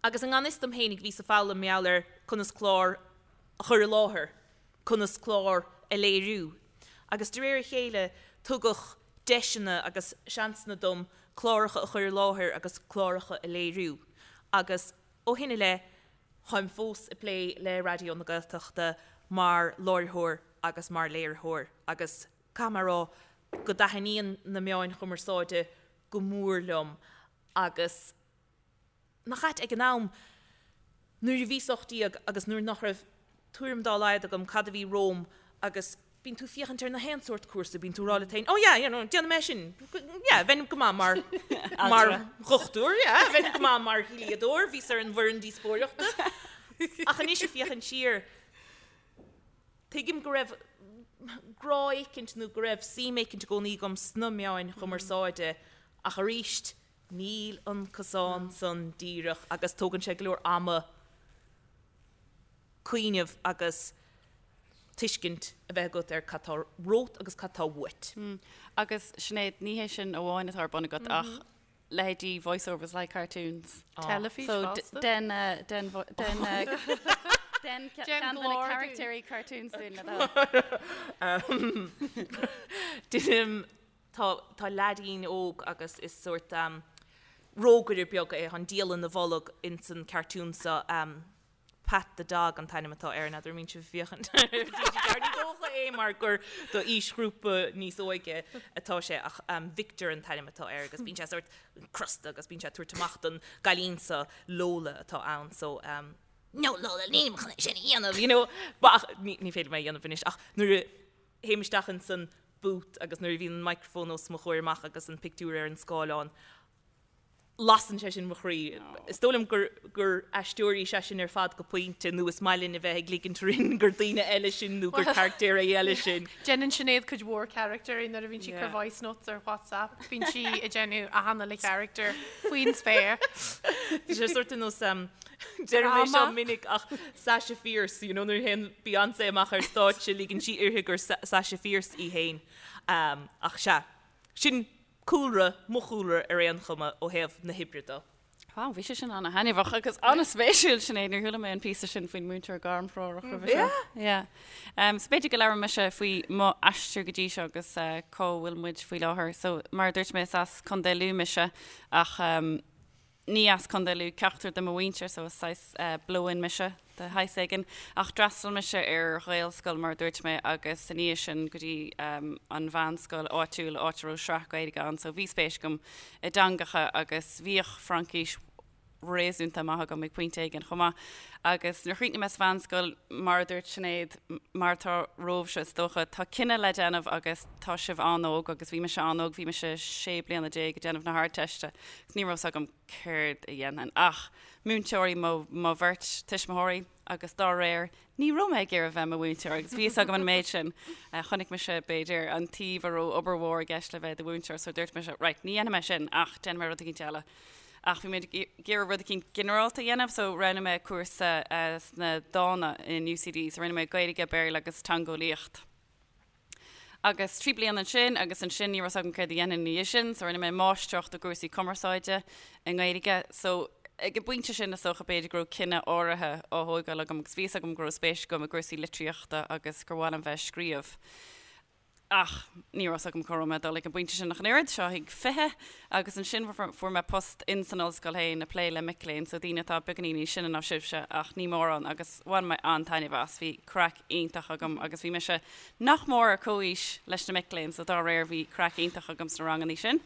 Agus i ngan fhios dom fhéinig bhíos ag foghlaim mar gheall ar conas clár a chur i láthair, conas clár a léiriú. Agus de réir a chéile tugadh deiseanna agus seansanna dom cláracha a chur i láthair agus cláracha a léiriú. Agus ó shin i leith táim fós ag plé le Raidió na Gaeltachta mar láithreoir agus mar léiritheoir agus caithfidh mé a rá go dtaitníonn na meáin chumarsáide go mór liom agus nach ait ag an am nuair a bhíos 18 agus nuair nach raibh tuairim dá laghad agam cad a bhí romham agus bíonn tú féachaint ar na haon sórt cúrsa, bíonn tú ag rá leat féin, oh yeah, you know, déanfaidh mé sin, yeah, bheinn go maith mar, mar dhochtúir, yeah, bheinn go maith mar dhlíodóir, bhíos ar an bhfoireann díospóireachta. Ach anois ag féachaint siar, tuigim go raibh grá éicint nó go raibh suim éicint i gcónaí agam sna meáin chumarsáide ach arís, Níl an cosán san díreach agus tógann sé go leor ama cuimhneamh agus tuiscint a bheith agat ar cad tá romhat agus cad tá uait. Agus Sinéad, ní hé sin amháin atá ar bun agat ach leithéidí voice-overs like cartoons. Teilifís So fosta. den den den den Déan ceann de na glór dúinn. caractéirí cartoons dúinn le do thoil. Deinim Tá, tá leaidín óg agus is sórt rógaire beag é, tá an diabhal ina bholg ins an cartoon seo, Pat the Dog an t-ainm atá air, n'fheadar an mbíonn sibh ag féachaint ar TG4, ní dócha é mar gur do aoisghrúpa níos óige atá sé ach Victor an t-ainm atá air agus bíonn sé sórt crosta agus bíonn sé ag tabhairt amach don gcailín seo, Lola atá ann so no Lola nílim chun é sin a dhéanamh, you know, ach ní féidir liom é a dhéanamh anois ach nuair a théim isteach ins an booth agus nuair a bhíonn an microphone os mo chomhair amach agus an pictiúr ar an scáileán, lasann sé sin mo chroí. Is dóigh liom gur gur aisteoirí is ea sinn ar fad go pointe nó is maith linn a bheith ag ligint orainn gur daoine eile sinn nó gur caractéirí eile sinn. Déanann Sinéad cuid mhór caractéirí nuair a bhíonn sí ag cur voice notes ar WhatsApp, bíonn sí ag déanamh achan uile character faoin spéir. Tá sé sórt ar nós Deirim é seo minic ach Sasha Fierce, you know, nuair a théann Beyoncé amach ar stáitse ligeann sí uirthi gur Sasha Fierce í féin. Ach sea, sin cúlra, mo chúlra ar aon chuma ó thaobh na hoibre de. Wow, bhí sé sin ana-thaitneamhach agus an-spéisiúil, Sinéad, níor chuala mé an píosa sin faoin múinteoir gairmthreorach roimhe seo. Yeah. Um, so b'fhéidir go labhróidh mise faoi mo aistear go dtí seo agus uh, cá bhfuil muid faoi láthair. So mar a dúirt mé is as Contae Lú mise ach um, ní as Contae Lú ceachtar de mo mhuintir so is saghas uh, blow-in mise de shaghas éigin. Ach d'fhreastail mise ar Ghaelscoil, mar a dúirt mé, agus ina dhiaidh sin go dtí an mheánscoil áitiúil, áit a raibh sraith Gaeilge ann, so bhí spéis agam i dteangacha agus bhíodh Fraincis réasúnta maith agam ag pointe éigin chomh maith. Agus nuair a chríochnaigh mé sa mheánscoil, mar a dúirt Sinéad, mar atá romhaibhse is dócha, tá cinneadh le déanamh agus tá sibh an-óg agus bhí mise an-óg, bhí mise 16 bliana ag déanamh na hArdteiste agus ní raibh 's agam céard a dhéanfainn. Ach múinteoirí mo mo bheirt tuismitheoirí agus dá réir ní raibh mé ag iarraidh bheith i mo mhúinteoir agus bhí fhios agam an méid sin. Chonaic mise b'fhéidir an taobh a raibh obair mhór i gceist le bheith i do mhúinteoir so dúirt mise right ní dhéanfaidh mé sin ach déanfaidh mé rud eicínt eile. Ach bhí mé ag iarraidh rud eicínt ginearálta a dhéanamh so roghnaigh mé cúrsa sna dána in UCD so rinne mé Gaeilge, Béarla agus Teangeolaíocht. Agus 3 bliana ansin agus ansin ní raibh 's agam céard a dhéanfainn ina dhiaidh sin so rinne mé máistreacht i gcúrsaí cumarsáide i nGaeilge. So ag an bpointe sin is dócha b'fhéidir go raibh cinneadh áirithe á thógáil agam agus bhí fhios agam go raibh spéis agam i gcúrsaí litríochta agus gur mhaith liom bheith ag scríobh. Ach ní raibh 's agam cá raibh mé ag dul ag an bpointe sin ach an oiread, seo ag 20 agus ansin fuair mé post in san ollscoil féin ag plé le mic léinn, so daoine atá beagáinín níos sine ná sibhse ach ní mórán agus bhain mé an-taitneamh as, bhí craic iontach agam agus bhí mise nach mór ar comhaois leis na mic léinn so dá réir bhí craic iontach agam sna rangannaí sin.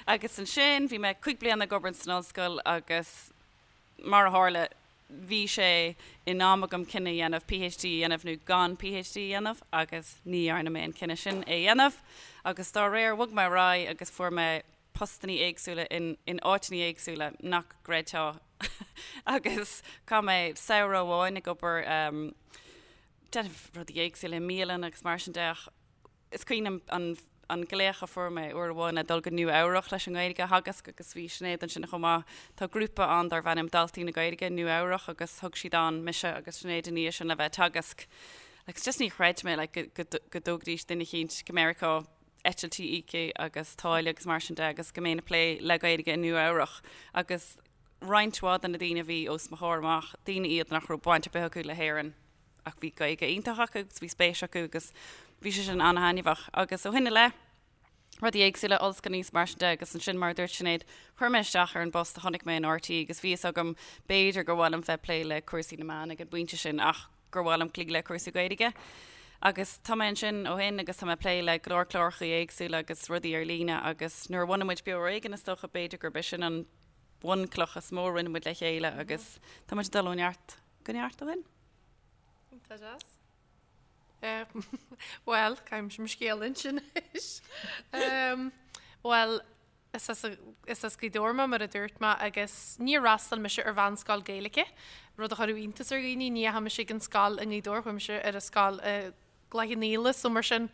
Agus ansin bhí mé cuig bliana ag obair san ollscoil agus mar a tharla bhí sé in am agam cinneadh a dhéanamh PhD a dhéanamh nó gan PhD a dhéanamh agus ní dhearna mé an cinneadh sin é a dhéanamh agus dá réir bhog mé ar aghaidh agus fuair mé postannaí éagsúla in in áiteannaí éagsúla nach gcreidfeá agus chaith mé samhradh amháin ag obair déanamh rudaí éagsúla i mbialann agus mar sin de ach is cuimhin liom an an glaoch a fuair mé uair amháin le dul go Nua Eabhrach leis an nGaeilge a theagasc agus bhí Sinéad ansin chomh maith. Tá grúpa ann darb ainm Daltaí na Gaeilge, Nua Eabhrach agus thug siad ann mise agus Sinéad ina dhiaidh sin le bheith ag teagasc. Agus just ní chreid mé like go go go dtógfaidís duine eicínt go Meiriceá, eitiltí íoctha agus táille agus mar sin de agus go mbeinn ag plé le Gaeilge i Nua Eabhrach agus roinnt mhaith de na daoine a bhí os mo chomhair amach, daoine iad nach raibh baint ar bith acu le hÉirinn ach bhí Gaeilge iontach acu agus bhí spéis acu agus bhí sé sin an-thaitneamhach. Agus ó shin i leith, rudaí éagsúla, ollscoileanna is mar sin de agus ansin mar a dúirt Sinéad, chuir mé isteach ar an bpost a chonaic mé in RTÉ agus bhí fhios agam b'fhéidir gur mhaith liom bheith ag plé le cúrsaí na meán ag an bpointe sin ach gur mhaith liom cloí le cúrsaí Gaeilge. Agus tá mé ansin ó shin agus tá mé ag plé le go leor cláracha éagsúla agus rudaí ar líne agus nuair a bhunaigh muid Beo Ar Éigean is dócha b'fhéidir gurb é sin an bhunchloch is mó a rinne muid le chéile agus tá muid ag dul ó neart go neart ó shin. Tá deas. Bhuel, caithfidh mo scéal a insint anois. Bhuel, is as is as Gaoth Dobhair mé mar a dúirt mé agus níor fhreastail mise ar mheánscoil Gaeilge, rud a chuirfeadh iontas ar dhaoine, ní dheachaigh mise ag an scoil i nGaoth Dobhair, chuaigh mise ar an scoil i gCloich Cheann Fhaola so mar sin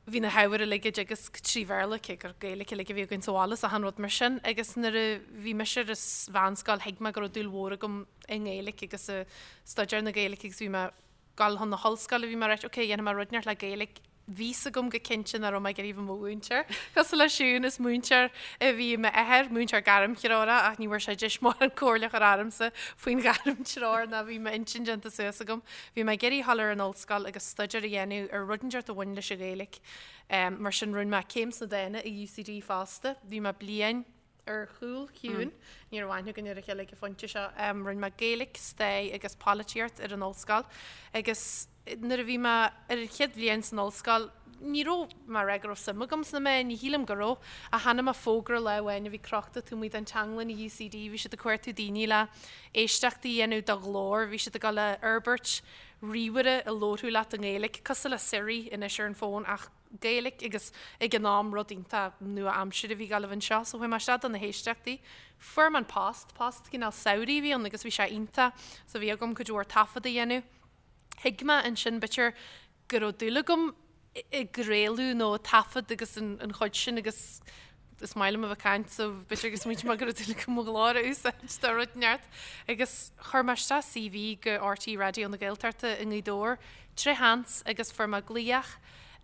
bhí na hábhair uilig á dteagasc trí Bhéarla, cé gur Gaeilge uilig a bhí againn sa bhaile is achan rud mar sin agus nuair a bhí mise ar an mheánscoil thuig mé go raibh dúil mhór agam i nGaeilge agus i staidéar na Gaeilge agus bhí mé dul chun na hollscoile bhí mé right ok dhéanfaidh mé rud inteacht le Gaeilge bhí 's agam go cinnte nach raibh mé ag iarraidh bheith i mo mhúinteoir. Cosúil le Siún is múinteoir a bhí i m'athair, múinteoir gairmthreorach ach ní bhfuair sé deis mórán comhairle a chur ormsa faoin ghairmthreoir ná bhí m'intinn déanta suas agam. Bhí mé ag iarraidh dhul ar an ollscoil agus staidéar a dhéanamh ar rud inteacht a bhain leis an Ghaeilge. Mar sin rinne mé céim sna dána i UCD fosta. Bhí mé bliain ar chúl Shiún. Ní raibh aithne againn ar a chéile ag an phointe seo. Rinne mé Gaeilge, Stair agus Polaitíocht ar an ollscoil agus nuair a bhí mé ar an chéad bhliain san ollscoil ní raibh mé ag rá go raibh suim agam sna meáin, ní shílim go raibh, ach chonaic mé fógra lá amháin a bhí crochta taobh amuigh den teanglann i UCD, bhí siad ag cuartú daoine le éisteachtaí a dhéanamh do ghlór, bhí siad ag dul a fhorbairt ríomhaire a labharfadh leat i nGaeilge, cosúil le Siri anois ar an bhfón ach Gaeilge agus ag an am rud iontach nua-aimseartha a bhí ag gabháil a bheith anseo. So chuaigh mé isteach do na héisteachtaí. Fuair mé an post, post cineál samhraidh a bhí ann agus bhí sé iontach. So bhí agam cuid mhór taifead a dhéanamh. Thuig mé ansin b'fhéidir go raibh dúil agam i gcraoladh nó i taifead agus an chuid sin agus is maith liom a bheith ag caint so b'fhéidir gur smaointigh mé go raibh dúil agam mo ghlór a úsáid do rud inteacht. Agus chuir mé isteach CV go RTÉ Raidió na Gaeltachta i nGaoth Dobhair tré sheans agus fuair mé glaoch.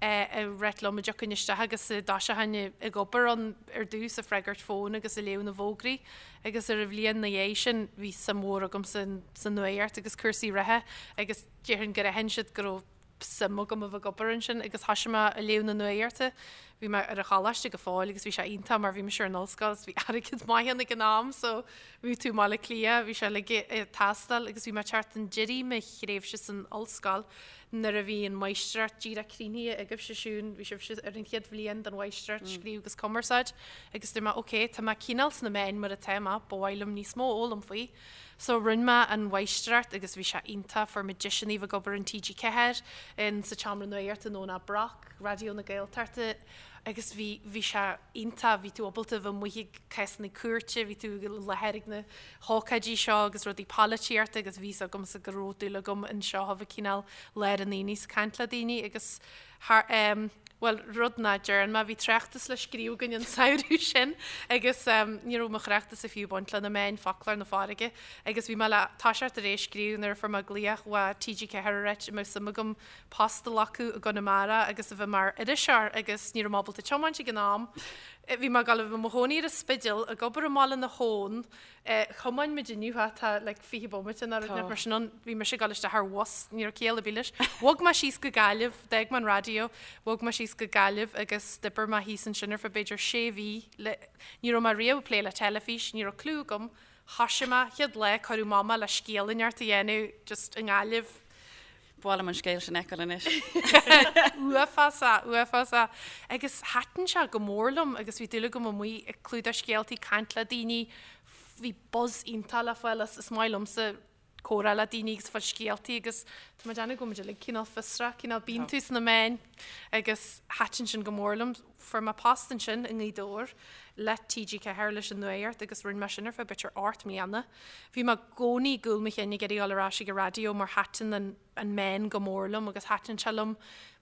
Ag ráit liom a dtiocfainn isteach agus a dtoiseochainn ag obair ann ar dtús, ag freagairt fóin agus ag léamh na bhfógraí. Agus ar an bhliain 'na dhiaidh sin bhí suim mhór agamsa sa nuaíocht agus cúrsaí reatha agus déarfainn gur aithin siad go raibh suim agam a bheith ag obair ansin agus thoisigh mé ag léamh na nuaíochta. Bhí mé ar an choláiste go fóill agus bhí sé iontach mar bhí mise ar an ollscoil agus bhí airgead maith ann ag an am so bhí tú i mBaile Átha Cliath, bhí sé uilig ag teastáil agus bhí mé ag teacht chun deiridh mo thréimhse san ollscoil Nuair a bhí an mháistreacht díreach críochnaithe agaibhse Siún, bhí sibhse ar an chéad bhliain den mháistreacht scríobh agus cumarsáid agus dúirt mé ok, tá mé cineál sna meáin mar atá mé, ba mhaith liom níos mó a fhoghlaim faoi. So rinne mé an mháistreacht agus bhí sé iontach, fuair mé deiseanna a bheith ag obair in TG4, in sa tseomra nuachta in Eoin Brock, Raidió na Gaeltachta agus bhí, bhí sé iontach, bhí tú ábalta a bheith amuigh ag cásanna cúirte, bhí tú i láthair ag na hócáidí seo agus rudaí polaitíochta agus bhí 's agamsa go raibh dúil agam anseo a bheith cineál lár an aonaigh 's caint le daoine agus thar em bhuel rud nach dtearn mé bhí tráchtas le scríobh againn an samhradh sin agus em ní raibh mo thráchtas fiú ag baint le na meáin foclóir na farraige agus bhí mé le toiseacht ar é a scríobh nuair a fuair mé glaoch ó TG4 ag ráit an mbeadh suim agam post a ghlacadh i gConamara agus a bheith mar iriseoir agus ní raibh mé ábalta tiomáint ag an am. Bhí mé ag dul a bheith i mo chónaí ar an Spidéal, ag obair i mBaile na hAbhann. Thiomáin muid inniu, tá like 20 bomaite nó rud mar sin ann. Bhí mise ag dul isteach ar bhus, ní raibh ciall ar bith leis. Bhog mé síos go Gaillimh, d'fhág mé an raidió, bhog mé síos go Gaillimh agus d'oibir mé thíos ansin ar feadh b'fhéidir sé mhí. Ní raibh mé riamh ag plé le teilifís, ní raibh clue agam. Thoisigh mé, chéad lá, cuireadh amach mé le scéal inteacht a dhéanamh just i nGaillimh. Ba mhaith liom an scéal sin a fheiceáil anois. Uafásach, uafásach. Agus thaitin sé go mór liom agus bhí dúil agam amuigh ag clúdach scéaltaí, caint le daoine, bhí buzz iontach le fáil as, is maith liomsa comhrá le daoine agus fáil scéaltaí agus tá mé ag déanamh go bhfuil muid uilig cineál fiosrach, cineál bíonn tú sna meáin agus thaitin sin go mór liom. Fuair mé post ansin i nGaoth Dobhair le TG4 leis an nuaíocht agus rinne mé sin ar feadh b'fhéidir 8 mbliana. Bhí mé i gcónaí i gcúl mo chinn ag iarraidh dul ar ais ag an raidió mar thaitin an an meán go mór liom agus thaitin sé liom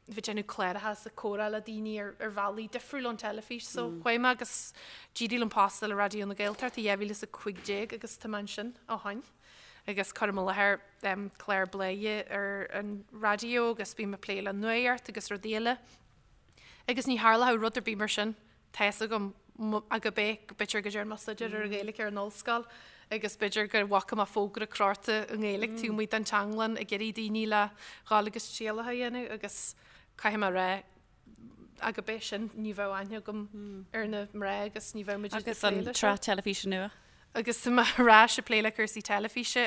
bheith ag déanamh cláracha is ag comhrá le daoine ar ar bhealaí difriúil ón teilifís. So chuaigh mé agus d'éirigh liom post a fháil le Raidió na Gaeltachta i 2015 agus tá mé ansin ó shin agus cuirim i láthair clár Bladhaire ar an raidió agus bím ag plé le nuaíocht agus rudaí eile. Agus ní tharlódh rud ar bith mar sin, tá fhios agam, ach ab é, b'fhéidir go dtearn mé staidéar ar an Ghaeilge ar an ollscoil agus b'fhéidir go bhfaca mé fógra crochta i nGaeilge taobh amuigh den teanglann ag iarraidh daoine le dhul agus trialacha a dhéanamh agus caithfidh mé a rá, ach ab é sin, ní bheadh aithne agam ar na mná agus ní bheadh muid ag plé Agus an leis seo. tsraith teilifíse nua? Agus tá mé ar ais ag plé le cúrsaí teilifíse,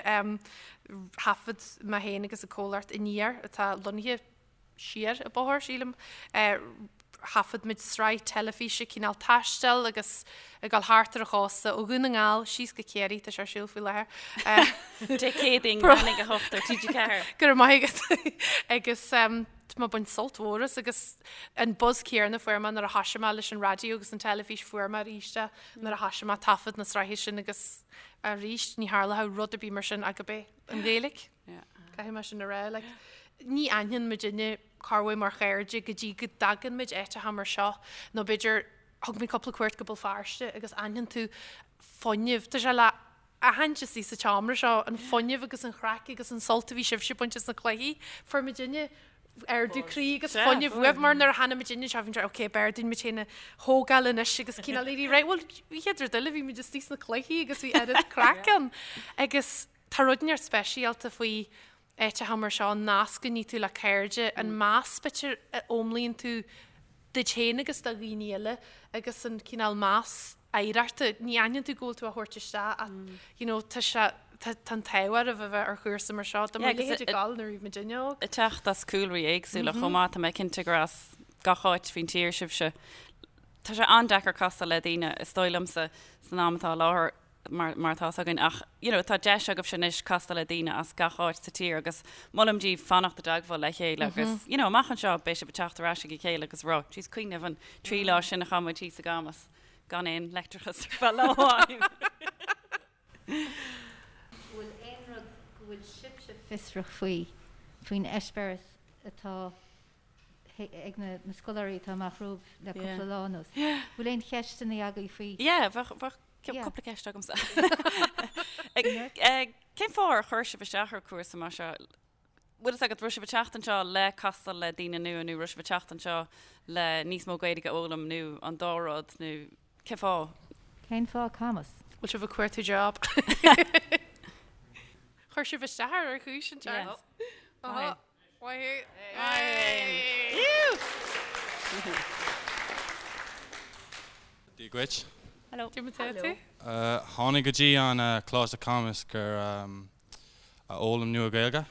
thaifead mé féin agus an comhlacht Aniar atá lonnaithe siar an bóthar, sílim. Thaifead muid sraith teilifíse cineál taistil agus ag dul thart ar an chósta ó Dhún na nGall síos go Ciarraí, tá sé ar siúl faoi láthair. Dé Céadaoin, leath i ndiaidh a 8 ar TG4. Go raibh maith agat. Agus tá mé ag baint sult mhór as agus an buzz céanna a fuair mé nuair a thoisigh mé leis an raidió agus an teilifís fuair mé arís é nuair a thoisigh mé ag taifead na sraithe sin agus arís ní tharlódh rud ar bith mar sin ach ab é an Ghaeilge. Caithfidh mé sin a rá. Like, ní aithneann muidinne corruair mar chairde go dtí go dtagann muid áiteacha mar seo nó b'fhéidir thug mé cúpla cuairt go Béal Feirste agus aithneann tú fuinneamh. Tá sé le aithint istigh sa tseomra seo, an fuinneamh agus an chraic agus an sult a bhí sibhse ag baint as na cluichí. Fuair muidinne ardú croí agus fuinneamh uaibh mar nuair a tháinig muidinne anseo bhí muid ok b'fhearr dúinn muid féin a thógáil anois agus cineál éirí réidh. Bhuel, bhí chéad rud eile bhí muid istigh sna cluichí agus bhí oiread craic ann. Agus Tá rud inteacht speisialta faoi áiteacha mar seo, an nasc a ní tú le cairde, an meas b'fhéidir a fhoghlaimíonn tú duit féin agus do dhaoine eile agus an cineál meas oidhreachta. Ní aithníonn tú go bhfuil tú á thabhairt isteach ach you know tá sé, tá an t-ádh oraibh a bheith ar chúrsa mar seo. Dá mbeadh a leithéid ag gabháil nuair a bhí muidinne óg. Ag teacht as cúlraí éagsúla chomh maith, tá mé cinnte gur as gach áit faoin tír sibhse. Tá sé an-deacair castáil le daoine, is dóigh liomsa, san am atá i láthair. mar mar atá 'fhios againn ach you know tá deis agaibhse anois castáil le daoine as gach áit sa tír agus molaim daoibh fanacht i dteagmháil le chéile agus you know amach anseo beidh sibh ag teacht ar ais ag a chéile agus rá jeez cuimhnigh an trí lá sin a chaith muid thíos i gCamus gan aon leictreachas ar feadh lá amháin. Bhfuil aon rud go bhfuil sibhse fiosrach faoi, faoin eispéireas atá ag na scoláirí atá amach romhaibh le cúpla lá anuas. Bhfuil aon cheisteanna agaibh faoi? Yeah, bheadh bheadh cúpla ceist agamsa. Cén fáth ar chuir sibh isteach ar cúrsa mar seo? Bhfuil fhios agat, raibh sibh ag teacht anseo le castáil le daoine nua nó raibh sibh ag teacht anseo le níos mó Gaeilge a fhoghlaim nó an dá rud nó cén fáth? Cén fáth Camas? Bhfuil sibh ag cuartú job? Chuir sibh isteach air ar chúis an teart. Maith thú. Dia dhuit. Hello. Dia duit. Tháinig go dtí an Coláiste Camas gur a fhoghlaim nua Gaeilge.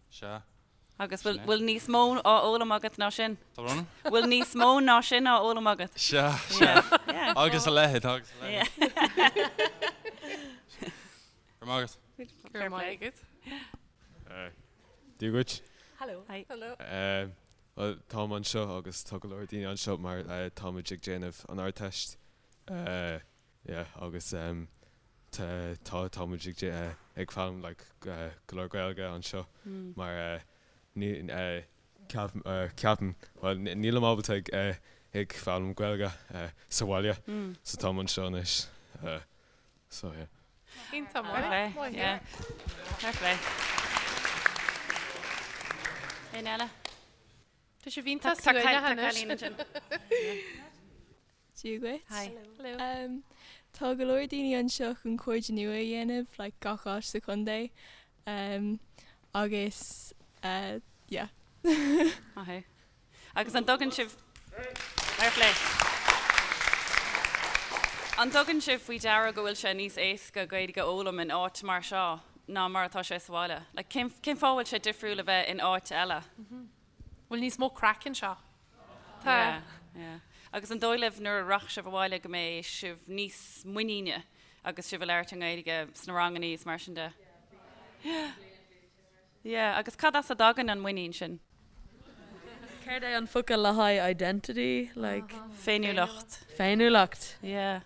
Sea. Agus bhfuil bhfuil níos mó á fhoghlaim agat ná sin? Tá brón orm? Bhfuil níos mó ná sin á fhoghlaim agat? Sea, sea. Agus a leithéid, agus a leithéid. Go raibh maith agat. Go raibh maith agat. Dia dhuit. Hello. Hi. Hello. Bhuel, táim anseo agus tá go leor daoine anseo mar táimid ag déanamh an Ardteist. Yeah agus tá tá muid ag ag foghlaim like go leor Gaeilge anseo mar ní ceapaim bhuel nílim ábalta ag ag foghlaim Gaeilge sa bhaile so táim anseo anois so yeah. Iontach maith. Fair play yeah fair play. Éinne eile? Tá sibh iontach suaimhneach anois. Dia dhuit. Hi. Hello. Tá go leor daoine anseo chun cairde nua a dhéanamh, like gach áit sa chontae. Um, agus uh, yeah. Maith thú. Agus an dtugann sibh Fair play. An dtugann sibh faoi deara go bhfuil sé níos éasca Gaeilge a fhoghlaim in áit mar seo ná mar atá sé sa bhaile? Like, cén, cén fáth a bhfuil sé difriúil a bheith in áit eile? Bhfuil níos mó craic anseo? Tá. Yeah, yeah. Agus an dóigh libh nuair a rachaidh sibh abhaile go mbeidh sibh níos muiníne agus sibh ag labhairt i nGaeilge sna rangannaí is mar sin de? Yeah. Yeah, agus cad as a dtagann an muinín sin? Céard é an focal le haghaidh identity? Like. Féiniúlacht. Féiniúlacht. Yeah.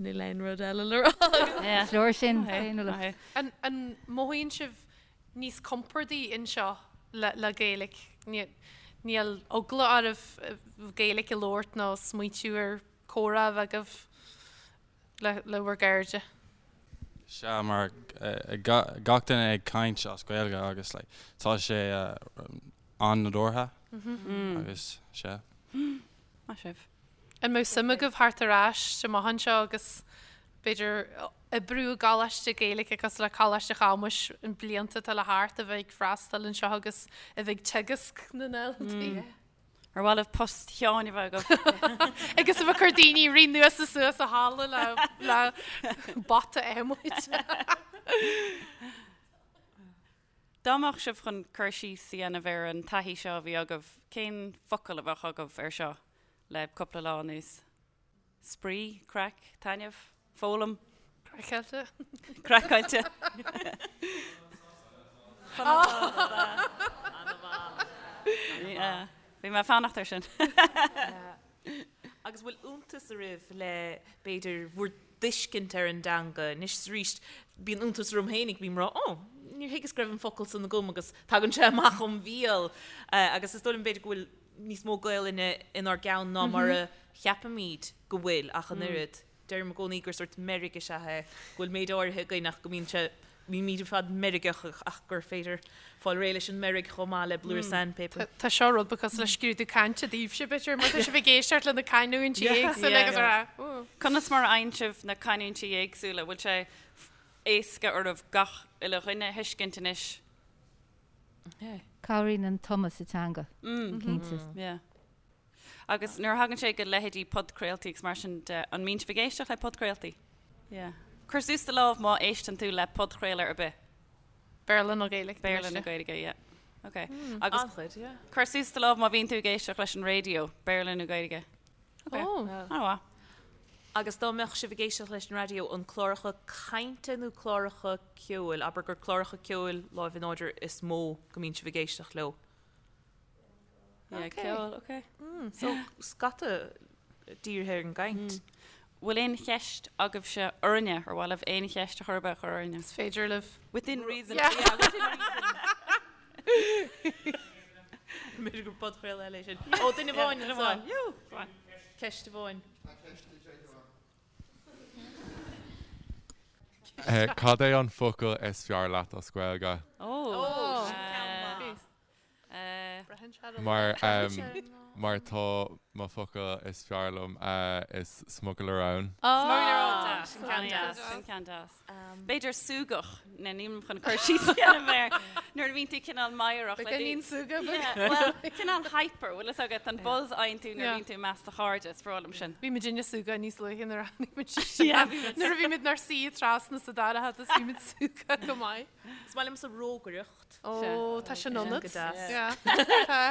Níl aon rud eile le rá agam. Yeah. Is leor sin, féiniúlacht. An, an mothaíonn sibh níos compordaí anseo le Gaeilge. Níl eagla oraibh Gaeilge a labhairt nó smaointiú ar comhrá a bheith agaibh le bhur gcairde. Sea, mar gach duine ag caint as Gaeilge agus like tá sé an-nádúrtha agus sea. Maith sibh. An mbeadh suim agaibh theacht ar ais amach anseo agus b'fhéidir oibriú i gcoláiste Gaeilge cosúil le Coláiste Chamuis na blianta atá le theacht a bheith ag freastal anseo agus a bheith ag teagasc na ndaltaí? Ar mhaith libh post Sheáin a bheith agaibh? Agus a bheith ag cur daoine ag rith anuas is suas an halla le le bata adhmaid. Dá mbeadh sibh chun cur síos a dhéanamh ar an taithí seo a bhí agaibh, cén focal a bheadh agaibh ar seo le cúpla lá anuas? Spraoi, craic, taitneamh, foghlaim. Craiceáilte. Craiceáilte. Bhí mé ag fanacht air sin. Agus bhfuil iontas oraibh le, b'fhéidir, bhur dtuiscint ar an dteanga. Anois is arís, bíonn iontas orm féinig, bím ag rá, 'Ó, níor thuigeas go raibh an focal san agam' agus tagann sé amach óm bhéal. Agus is dóigh liom, b'fhéidir, go bhfuil níos mó Gaelainne inár gceann ná mar a cheapaimid go bhfuil ach an oiread. Deirim i gcónaí gur sórt meirg is ea é, go bhfuil méid áirithe againn ach go mbíonn sé, bímid ar fad meirgeach ach gur féidir fáil réidh leis an meirg chomh maith le blúire sandpaper. Tá seo rud beag cosúil le scrúdú cainte daoibhse, b'fhéidir, mar tá sibh ag éisteacht le na canúintí éagsúla agus a rá, Ooh. Conas mar a fhaigheann sibh na canúintí éagsúla? Bhfuil sé éasca oraibh gach uile dhuine a thuiscint anois? Cabhraíonn an tumadh sa teanga, cinnte. Yeah. Agus nuair a thagann sé go leithéidí podchraoltaí agus mar sin de, an mbíonn sibh ag éisteacht le podchraoltaí? Yeah. Cuir suas do lámh má éisteann tú le podchraoladh ar bith. Béarla nó Gaeilge? Béarla nó Gaeilge, yeah. Ok. Agus An-chuid, yeah. cuir suas do lámh má bhíonn tú ag éisteacht leis an raidió, Béarla nó Gaeilge. Ok. Oh. An-mhaith. Agus dá mbeadh sibh ag éisteacht leis an raidió, an cláracha cainte nó cláracha ceoil, abair gur cláracha ceoil láimh in airde is mó go mbíonn sibh ag éisteacht leo? Yeah, ceol, ok. So, scata dírithe ar an gcaint. Bhfuil aon cheist agaibhse orainne? Ar mhaith libh aon cheist a chur ar bith a chur orainne? Is féidir libh. Within reason. Yeah. Yeah, within reason. B'fhéidir gur podchraoladh eile é sin. Ó, duine amháin Duine anseo. amháin. Go on. Ceist amháin. Cad é an focal is fearr leat as Gaeilge? Ó, sin ceann. Mar mar tá mo focal is fearr liom is smugairle róin. Smugairle róin, deas. Sin ceann deas. Sin ceann deas. B'fhéidir súgach, nó nílim chun cur síos a dhéanamh air, nuair a bhíonn tú cineál meidhreach. Beagáinín súgach. Bhuel, cineál hyper, bhfuil fhios agat, an buzz a fhaigheann tú nuair a bhíonn tú i measc do chairde, is breá liom sin. Bhí muid ag súgach níos luaithe nuair a tháinig muid isteach. Nuair a bhí muid inár suí trasna sa dara hata bhí muid súgach go maith. Is maith liomsa rógaireacht. Ó, tá sin ionat. Go deas.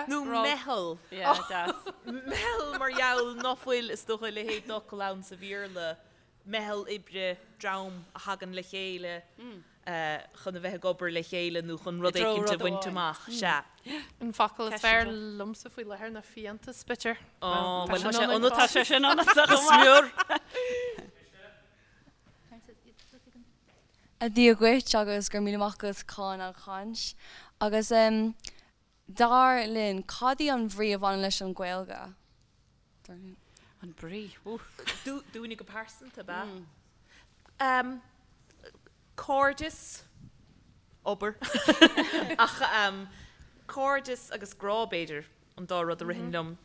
Nó meitheal. Meitheal mar gheall ná fuil is dócha a leithéid d'fhocal ann sa Bhéarla, meitheal oibre, dream a thagann le chéile chun a bheith ag obair le chéile nó chun rud éicint a bhaint amach. Sea. An focal is fearr liomsa faoi láthair ná fiántas, b'fhéidir. Ó, bhuel tá sé ionat. Tá sé sin ionat go smior. A Dhia dhuit agus go raibh míle maith agat chun an chaint. Agus dar linn, cad í an bhrí a bhaineann leis an Ghaeilge? Dar linn. An brí? Woo. Dúinne go pearsanta, ab ea? Cairdeas, obair. Ach cairdeas agus grá, b'fhéidir, an dá rud a ritheann liom,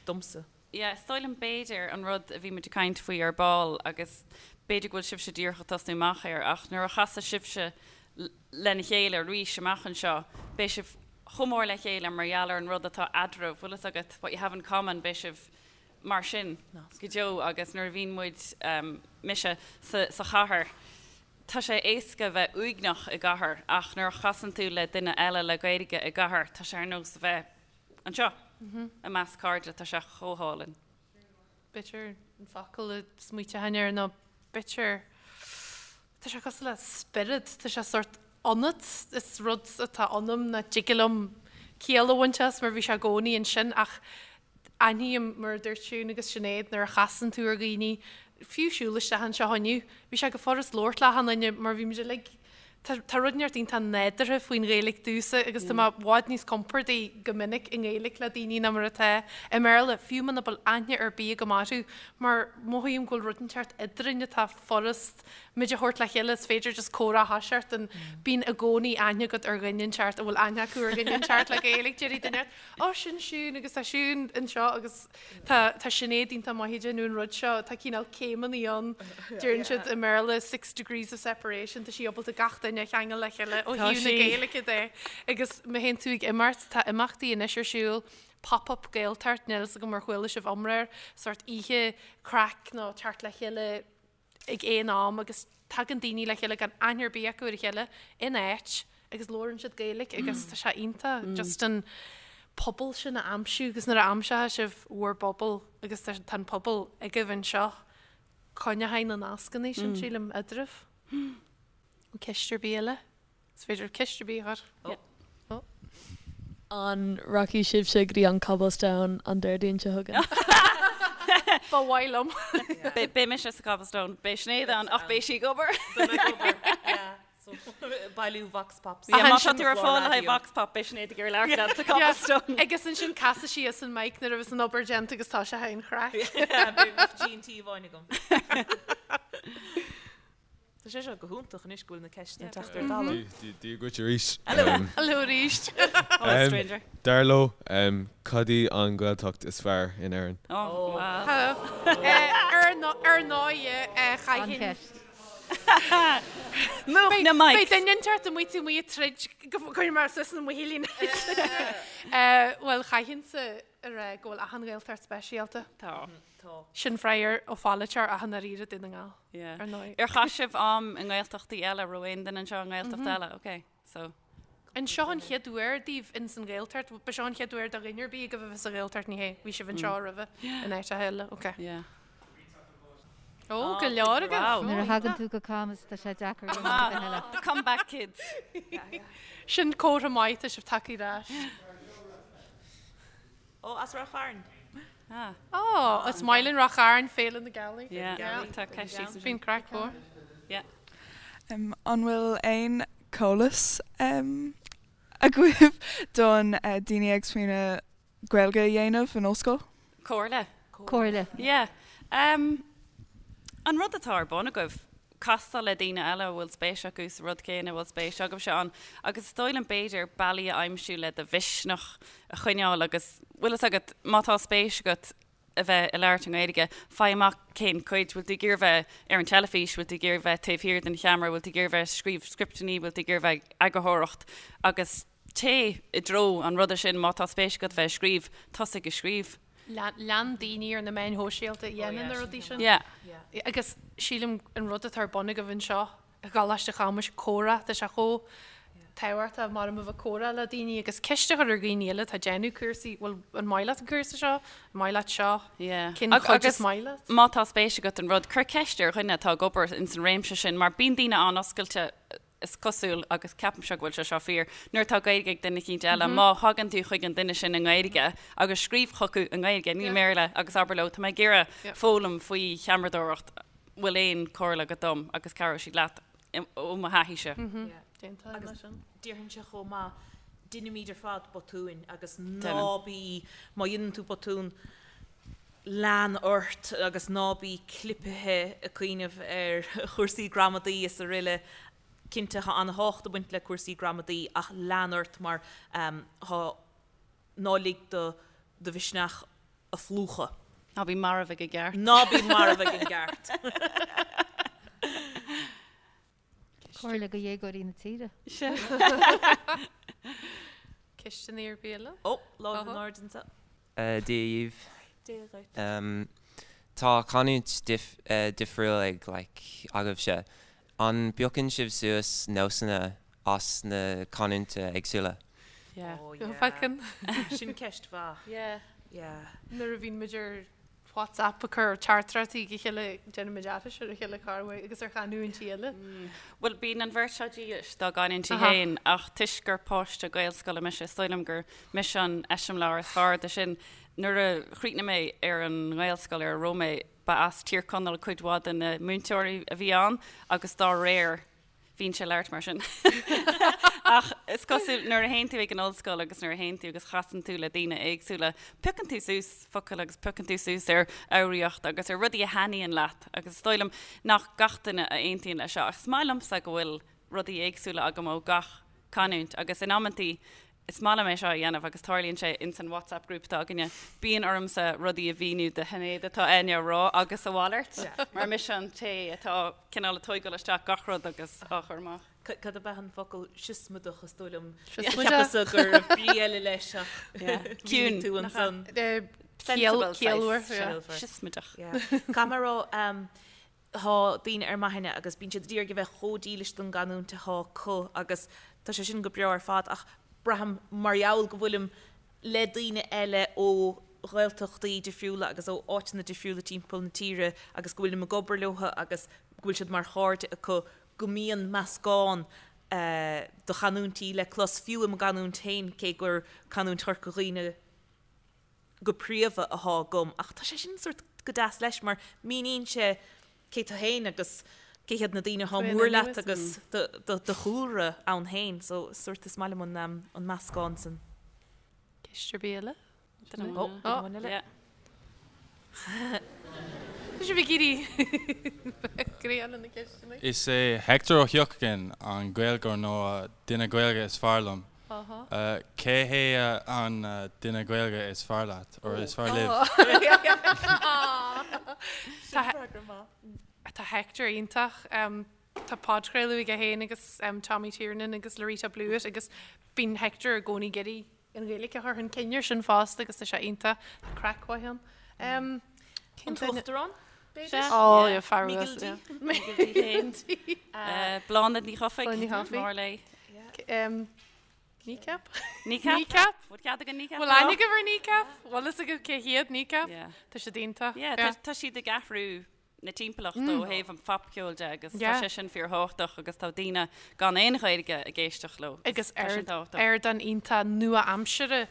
domsa. Yeah, is dóigh liom b'fhéidir an rud a bhí muid ag caint faoi ar ball agus b'fhéidir go bhfuil sibhse díreach ag tosnú amach air ach nuair a chasfaidh sibhse lena chéile arís amach anseo beidh sibh chomh mór le chéile mar gheall ar an rud atá eadraibh, bhfuil fhios agat, what you have in common, beidh sibh mar sin go deo agus nuair a bhíonn muid, mise, sa sa chathair, tá sé éasca bheith uaigneach i gcathair ach nuair a chasann tú le duine eile le Gaeilge i gcathair tá sé ar nós a bheith Anseo, i measc cairde, tá sé chomh hálainn. B'fhéidir an focal a smaoiteochainn air nó b'fhéidir, tá sé cosúil le spiorad, tá sé sórt ionat, is rud atá ionam nach dtig liom ciall a bhaint as mar bhí sé i gcónaí ansin ach aithním mar a dúirt Siún agus Sinéad nuair a chasann tú ar dhaoine, fiú siúl isteach anseo inniu, bhí sé go furast labhairt le achan duine mar bhí muid uilig Tá tá rud inteacht iontach nádúrtha faoin Ghaeilge domhsa agus tá mé i bhfad níos compordaí go minic i nGaeilge le daoine ná mar atá i mBéarla, fiú muna bhfuil aithne ar bith agam orthu, mar mothaím go bhfuil rud inteacht eadrainn atá furast muid a thabhairt le chéile, is féidir just comhrá a thoiseacht and bíonn i gcónaí aithne agat ar dhuine inteacht a bhfuil aithne acu ar dhuine inteacht le Gaeilge, déarfaidh duine inteacht, Ó, sin Siún agus tá Siún anseo agus tá tá Sinéad iontach maith ag déanamh an rud seo, tá cineál céimeanna ann, deireann siad i mBéarla six degrees of separation, tá sí ábalta gach duine a cheangal le chéile ó thaobh na Gaeilge de agus má théann tú ag imeacht, tá imeachtaí anois ar siúl, Pop-up Gaeltacht, níl fhios agam ar chuala sibh iomrá air, sórt oíche craic nó teacht le chéile ag aon am agus tagann daoine le chéile gan aithne ar bith acu ar a chéile in áit agus labhrann siad Gaeilge agus tá sé iontach just an pobal sin a aimsiú agus nuair a aimseoidh sibh bhur bpobal agus tá an pobal agaibh anseo, coinneochaidh na nascanna sin sílim eadraibh. Ceist ar bith eile? Is féidir ceist ar bith a chur. Ó. An rachaidh sibhse go dtí an Cobblestone an Déardaoin seo chugainn? Ba mhaith liom. Beidh mise sa Cobblestone. Beidh Sinéad ann ach beidh sí ag obair. Beidh mé ag obair, yeah. So, bailiú Vox Pops. Yeah, má tá tú ar fáil le haghaidh Vox Pop, beidh Sinéad ag iarraidh labhairt leat sa Cobblestone. Agus ansin casfaidh sí as an mic nuair a bheas an obair déanta agus tá sé an chraic. Beidh G&T amháin agam. Tá sé seo go hiontach anois go bhfuil na ceisteanna ag teacht ar talamh. Dia dhuit arís. Hello arís. Hello stranger. Dar leo, cad í an Ghaeltacht is fearr in Éirinn? Oh wow. Ar ndóigh, chaithfinn. Múch na mics. Beidh duine inteacht amuigh taobh amuigh ag troid go gcuirfidh mé suas na muichillíní. Bhuel, chaithfinnse a rá go bhfuil achan Ghaeltacht speisialta. Tá. Tá. Sin freagra ó pholaiteoir ach i ndáiríre Dún na nGall, Yeah. ar ndóigh. Ar chaith sibh am i nGaeltachtaí eile? Raibh aon duine anseo i nGaeltacht eile? Ok, so. An seo an chéad uair daoibh ins an Ghaeltacht? Ba seo an chéad uair do dhuine ar bith agaibh a bheith sa Ghaeltacht, ní hé? Bhí sibh anseo roimhe in áiteacha eile, ok. Yeah. Ó, go leor agaibh! Wow. Nuair a thagann tú go Camus tá sé deacair rud ar bith eile. Come back kids. Sin comhartha maith, tá sibh tagtha ar ais. Ó, as Ráth Chairn. Ah. Ó, is maith linn Ráth Chairn, Féile na Gealaí. Yeah, tá ceist síos ansin. Bíonn craic mhór. Yeah. An bhfuil aon eolas agaibh don daoine ag smaoineamh Gaeilge a dhéanamh in ollscoil? Comhairle. Comhairle. Yeah. Um, an rud atá ar bun agaibh, castáil le daoine eile a bhfuil spéis acu sa rud céanna a bhfuil spéis agaibhse ann agus is dóigh liom b'fhéidir bealaí a aimsiú le do mhisneach a choinneáil agus bhfuil fhios agat má tá spéis agat a bheith ag labhairt i nGaeilge, faigh amach cén cuid, bhfuil tú ag iarraidh bheith ar an teilifís, bhfuil tú ag iarraidh bheith taobh thiar den cheamara, bhfuil tú ag iarraidh bheith ag scríobh scripteanna, bhfuil tú ag iarraidh bheith ag eagarthóireacht agus téigh i dtreo an ruda sin má tá spéis agat bheith ag scríobh, tosaigh ag scríobh. Lean daoine ar na meáin shóisialta a dhéanann na rudaí sin. Yeah. Agus sílim an rud atá ar bun agaibh anseo i gColáiste Chamuis, comhrá, tá sé chomh tábhachtach mar a bheith ag comhrá le daoine agus ceist a chur ar dhaoine eile atá ag déanamh cúrsaí, bhfuil, an maith leat an cúrsa seo? An maith leat seo? Yeah. Cén chuid is maith leat? Má tá spéis agat in rud, cuir ceist ar dhuine atá ag obair ins an réimse sin mar bíonn daoine an-oscailte is cosúil, agus ceapaimse go bhfuil sé seo fíor, nuair atá Gaeilge ag duine eicínt eile, má thagann tú chuig an duine sin i nGaeilge agus scríobh chucu i nGaeilge, ní i mBéarla, agus abair leo, tá mé ag iarraidh foghlaim faoi cheamaradóireacht, bhfuil aon chomhairle agat dom? agus cabhróidh siad leat, ó mo thaithíse. Agus déarfainnse chomh maith, deinimid ar fad botúin agus ná bí, má dhéanann tú botún, lean ort agus ná bí clipithe ag cuimhneamh ar chúrsaí gramadaí is aroile. Cinnte, tá an-tábhacht ag baint le cúrsaí gramadaí ach lean ort mar tá, ná lig do do mhisneach a phlúchadh. Ná bí marbh ag an gceart. Ná bí marbh ag an gceart. Comhairle do dhéagóirí na tíre. Ceisteanna ar bith eile? Ó, lámh in airde anseo. Dia dhaoibh. Dia dhuit. Tá canúint difriúil ag like agaibhse. An bpiocann sibh suas nósanna as na canúintí éagsúla? Yeah. Oh yeah. Piocann. Sin ceist mhaith. Yeah. Yeah. Nuair a bhíonn muid ar WhatsApp ag cur teachtaireachtaí chuig a chéile, déanaimid aithris ar a chéile corruair agus ar chanúintí eile. Bhuel, bíonn an bheirt seo dílis dá gcanúintí féin ach toisc gur páiste Gaelscoile mise, is dóigh liom gur mise an eiseamláir is fearr de sin. Nuair a chríochnaigh mé ar an nGaelscoil ar a raibh mé, ba as Tír Chonaill cuid mhaith de na múinteoirí a bhí ann agus dá réir, bhínnse ag labhairt mar sin. Ach is cosúil nuair a théann tú ag an ollscoil agus nuair a théann tú agus chasann tú le daoine éagsúla, piocann tú suas focail agus piocann tú suas ar fhoghraíocht agus ar rudaí a thaitníonn leat agus is dóigh liom nach gach duine a aontaíonn leis seo ach is maith liomsa go bhfuil rudaí éagsúla agam ó gach canúint agus in amantaí Is maith liom é seo a dhéanamh agus tarlaíonn sé ins an WhatsApp group atá againne. Bíonn ormsa rudaí a mhíniú do Shinéad atá Áine a rá agus a mhalairt mar mise an té atá cineál ag tóigeáil isteach gach rud agus á chur amach. Cad ab ea an focal siosmaideach is dóigh liom? Cheapas-sa go raibh brí eile leis ach mhínigh tú ansan. Sensible saghas. Siosmaideach. Caithfidh mé a rá, Tá daoine ar m'aithne agus bíonn siad ag iarraidh a bheith chomh dílis don gcanúint atá acu agus tá sé sin go breá ar fad ach braithim mar gheall go bhfuilim le daoine eile ó Ghaeltachtaí difriúla agus ó áiteanna difriúla timpeall na tíre agus go bhfuilim ag obair leo agus go bhfuil siad mar chairde acu go mbíonn meascán de chanúintí le clos fiú i mo gcanúint féin cé gur canúint Chorca Dhuibhne go príomha athá agam ach tá sé sin sórt go deas leis mar míníonn sé cé tú féin agus cé hiad na daoine athá mór leat agus do chúlra ann féin so sórt is maith liom an an meascán san. Ceist ar bith eile? Duine amháin Ó, duine amháin eile. Tá sibh ag éirí greann na ceisteanna. Is é Hector Ó hEochagáin an Gaeilgeoir nó duine Gaeilge is fearr liom. Cé hé an duine Gaeilge is fearr leat, or is fearr libh? Tá Hector iontach. Tá podchraoladh aige féin agus Tommy Tiernan agus Loretta Blewitt agus bíonn Hector i gcónaí ag iarraidh an Ghaeilge a chur chun cinn air sin fosta agus tá sé iontach. Tá craic mhaith ann. An tUachtarán, b'fhéidir? Ó, yeah, fear Miguel D. Miguel D. Bláthnaid Ní Chofaigh. Bláthnaid Ní Chofaigh. Mór léi. Kneecap? Kneecap? Kneecap? Bhfuil cead againn Kneecap Bhfuil aithne agaibh ar Kneecap? Bhfuil fhios agaibh cé hiad Kneecap? Tá siad iontach. Yeah, tá siad ag athrú na timpeallachta ó thaobh an phopcheoil de agus tá sé sin fíorthábhachtach agus tá daoine gan aon Ghaeilge ag éisteacht leo agus tá sin tábhachtach. Ardán iontach nua-aimseartha.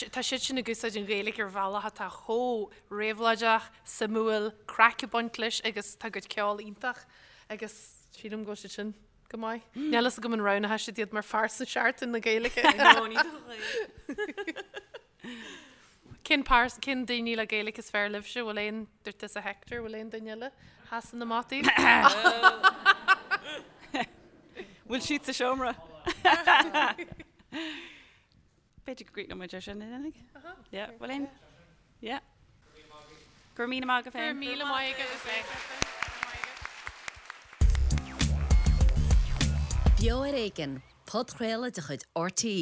Tá siad sin ag úsáid an Ghaeilge ar bhealach atá chomh réabhlóideach, suimiúil, craic ag baint leis agus tá a gcuid ceoil iontach agus sílim go bhfuil siad sin go maith. Níl fhios agam an roghnódh siad iad mar phearsa Seachtain na Gaeilge. No, ní dóigh. Cén pears, cén daoine le Gaeilge is fearr libhse? Bhfuil aon, dúirt tusa Hector, bhfuil aon duine eile a sheasann amach daoibh? Bhfuil siad sa seomra? B'fhéidir go gcríochnóidh muid ar sin, an ndéanfaidh? Yeah, bhfuil aon? Yeah. Go raibh míle maith agaibh féin. Go raibh míle maith agaibh féin. Beo ar Éigean, podchraoladh de chuid RTÉ.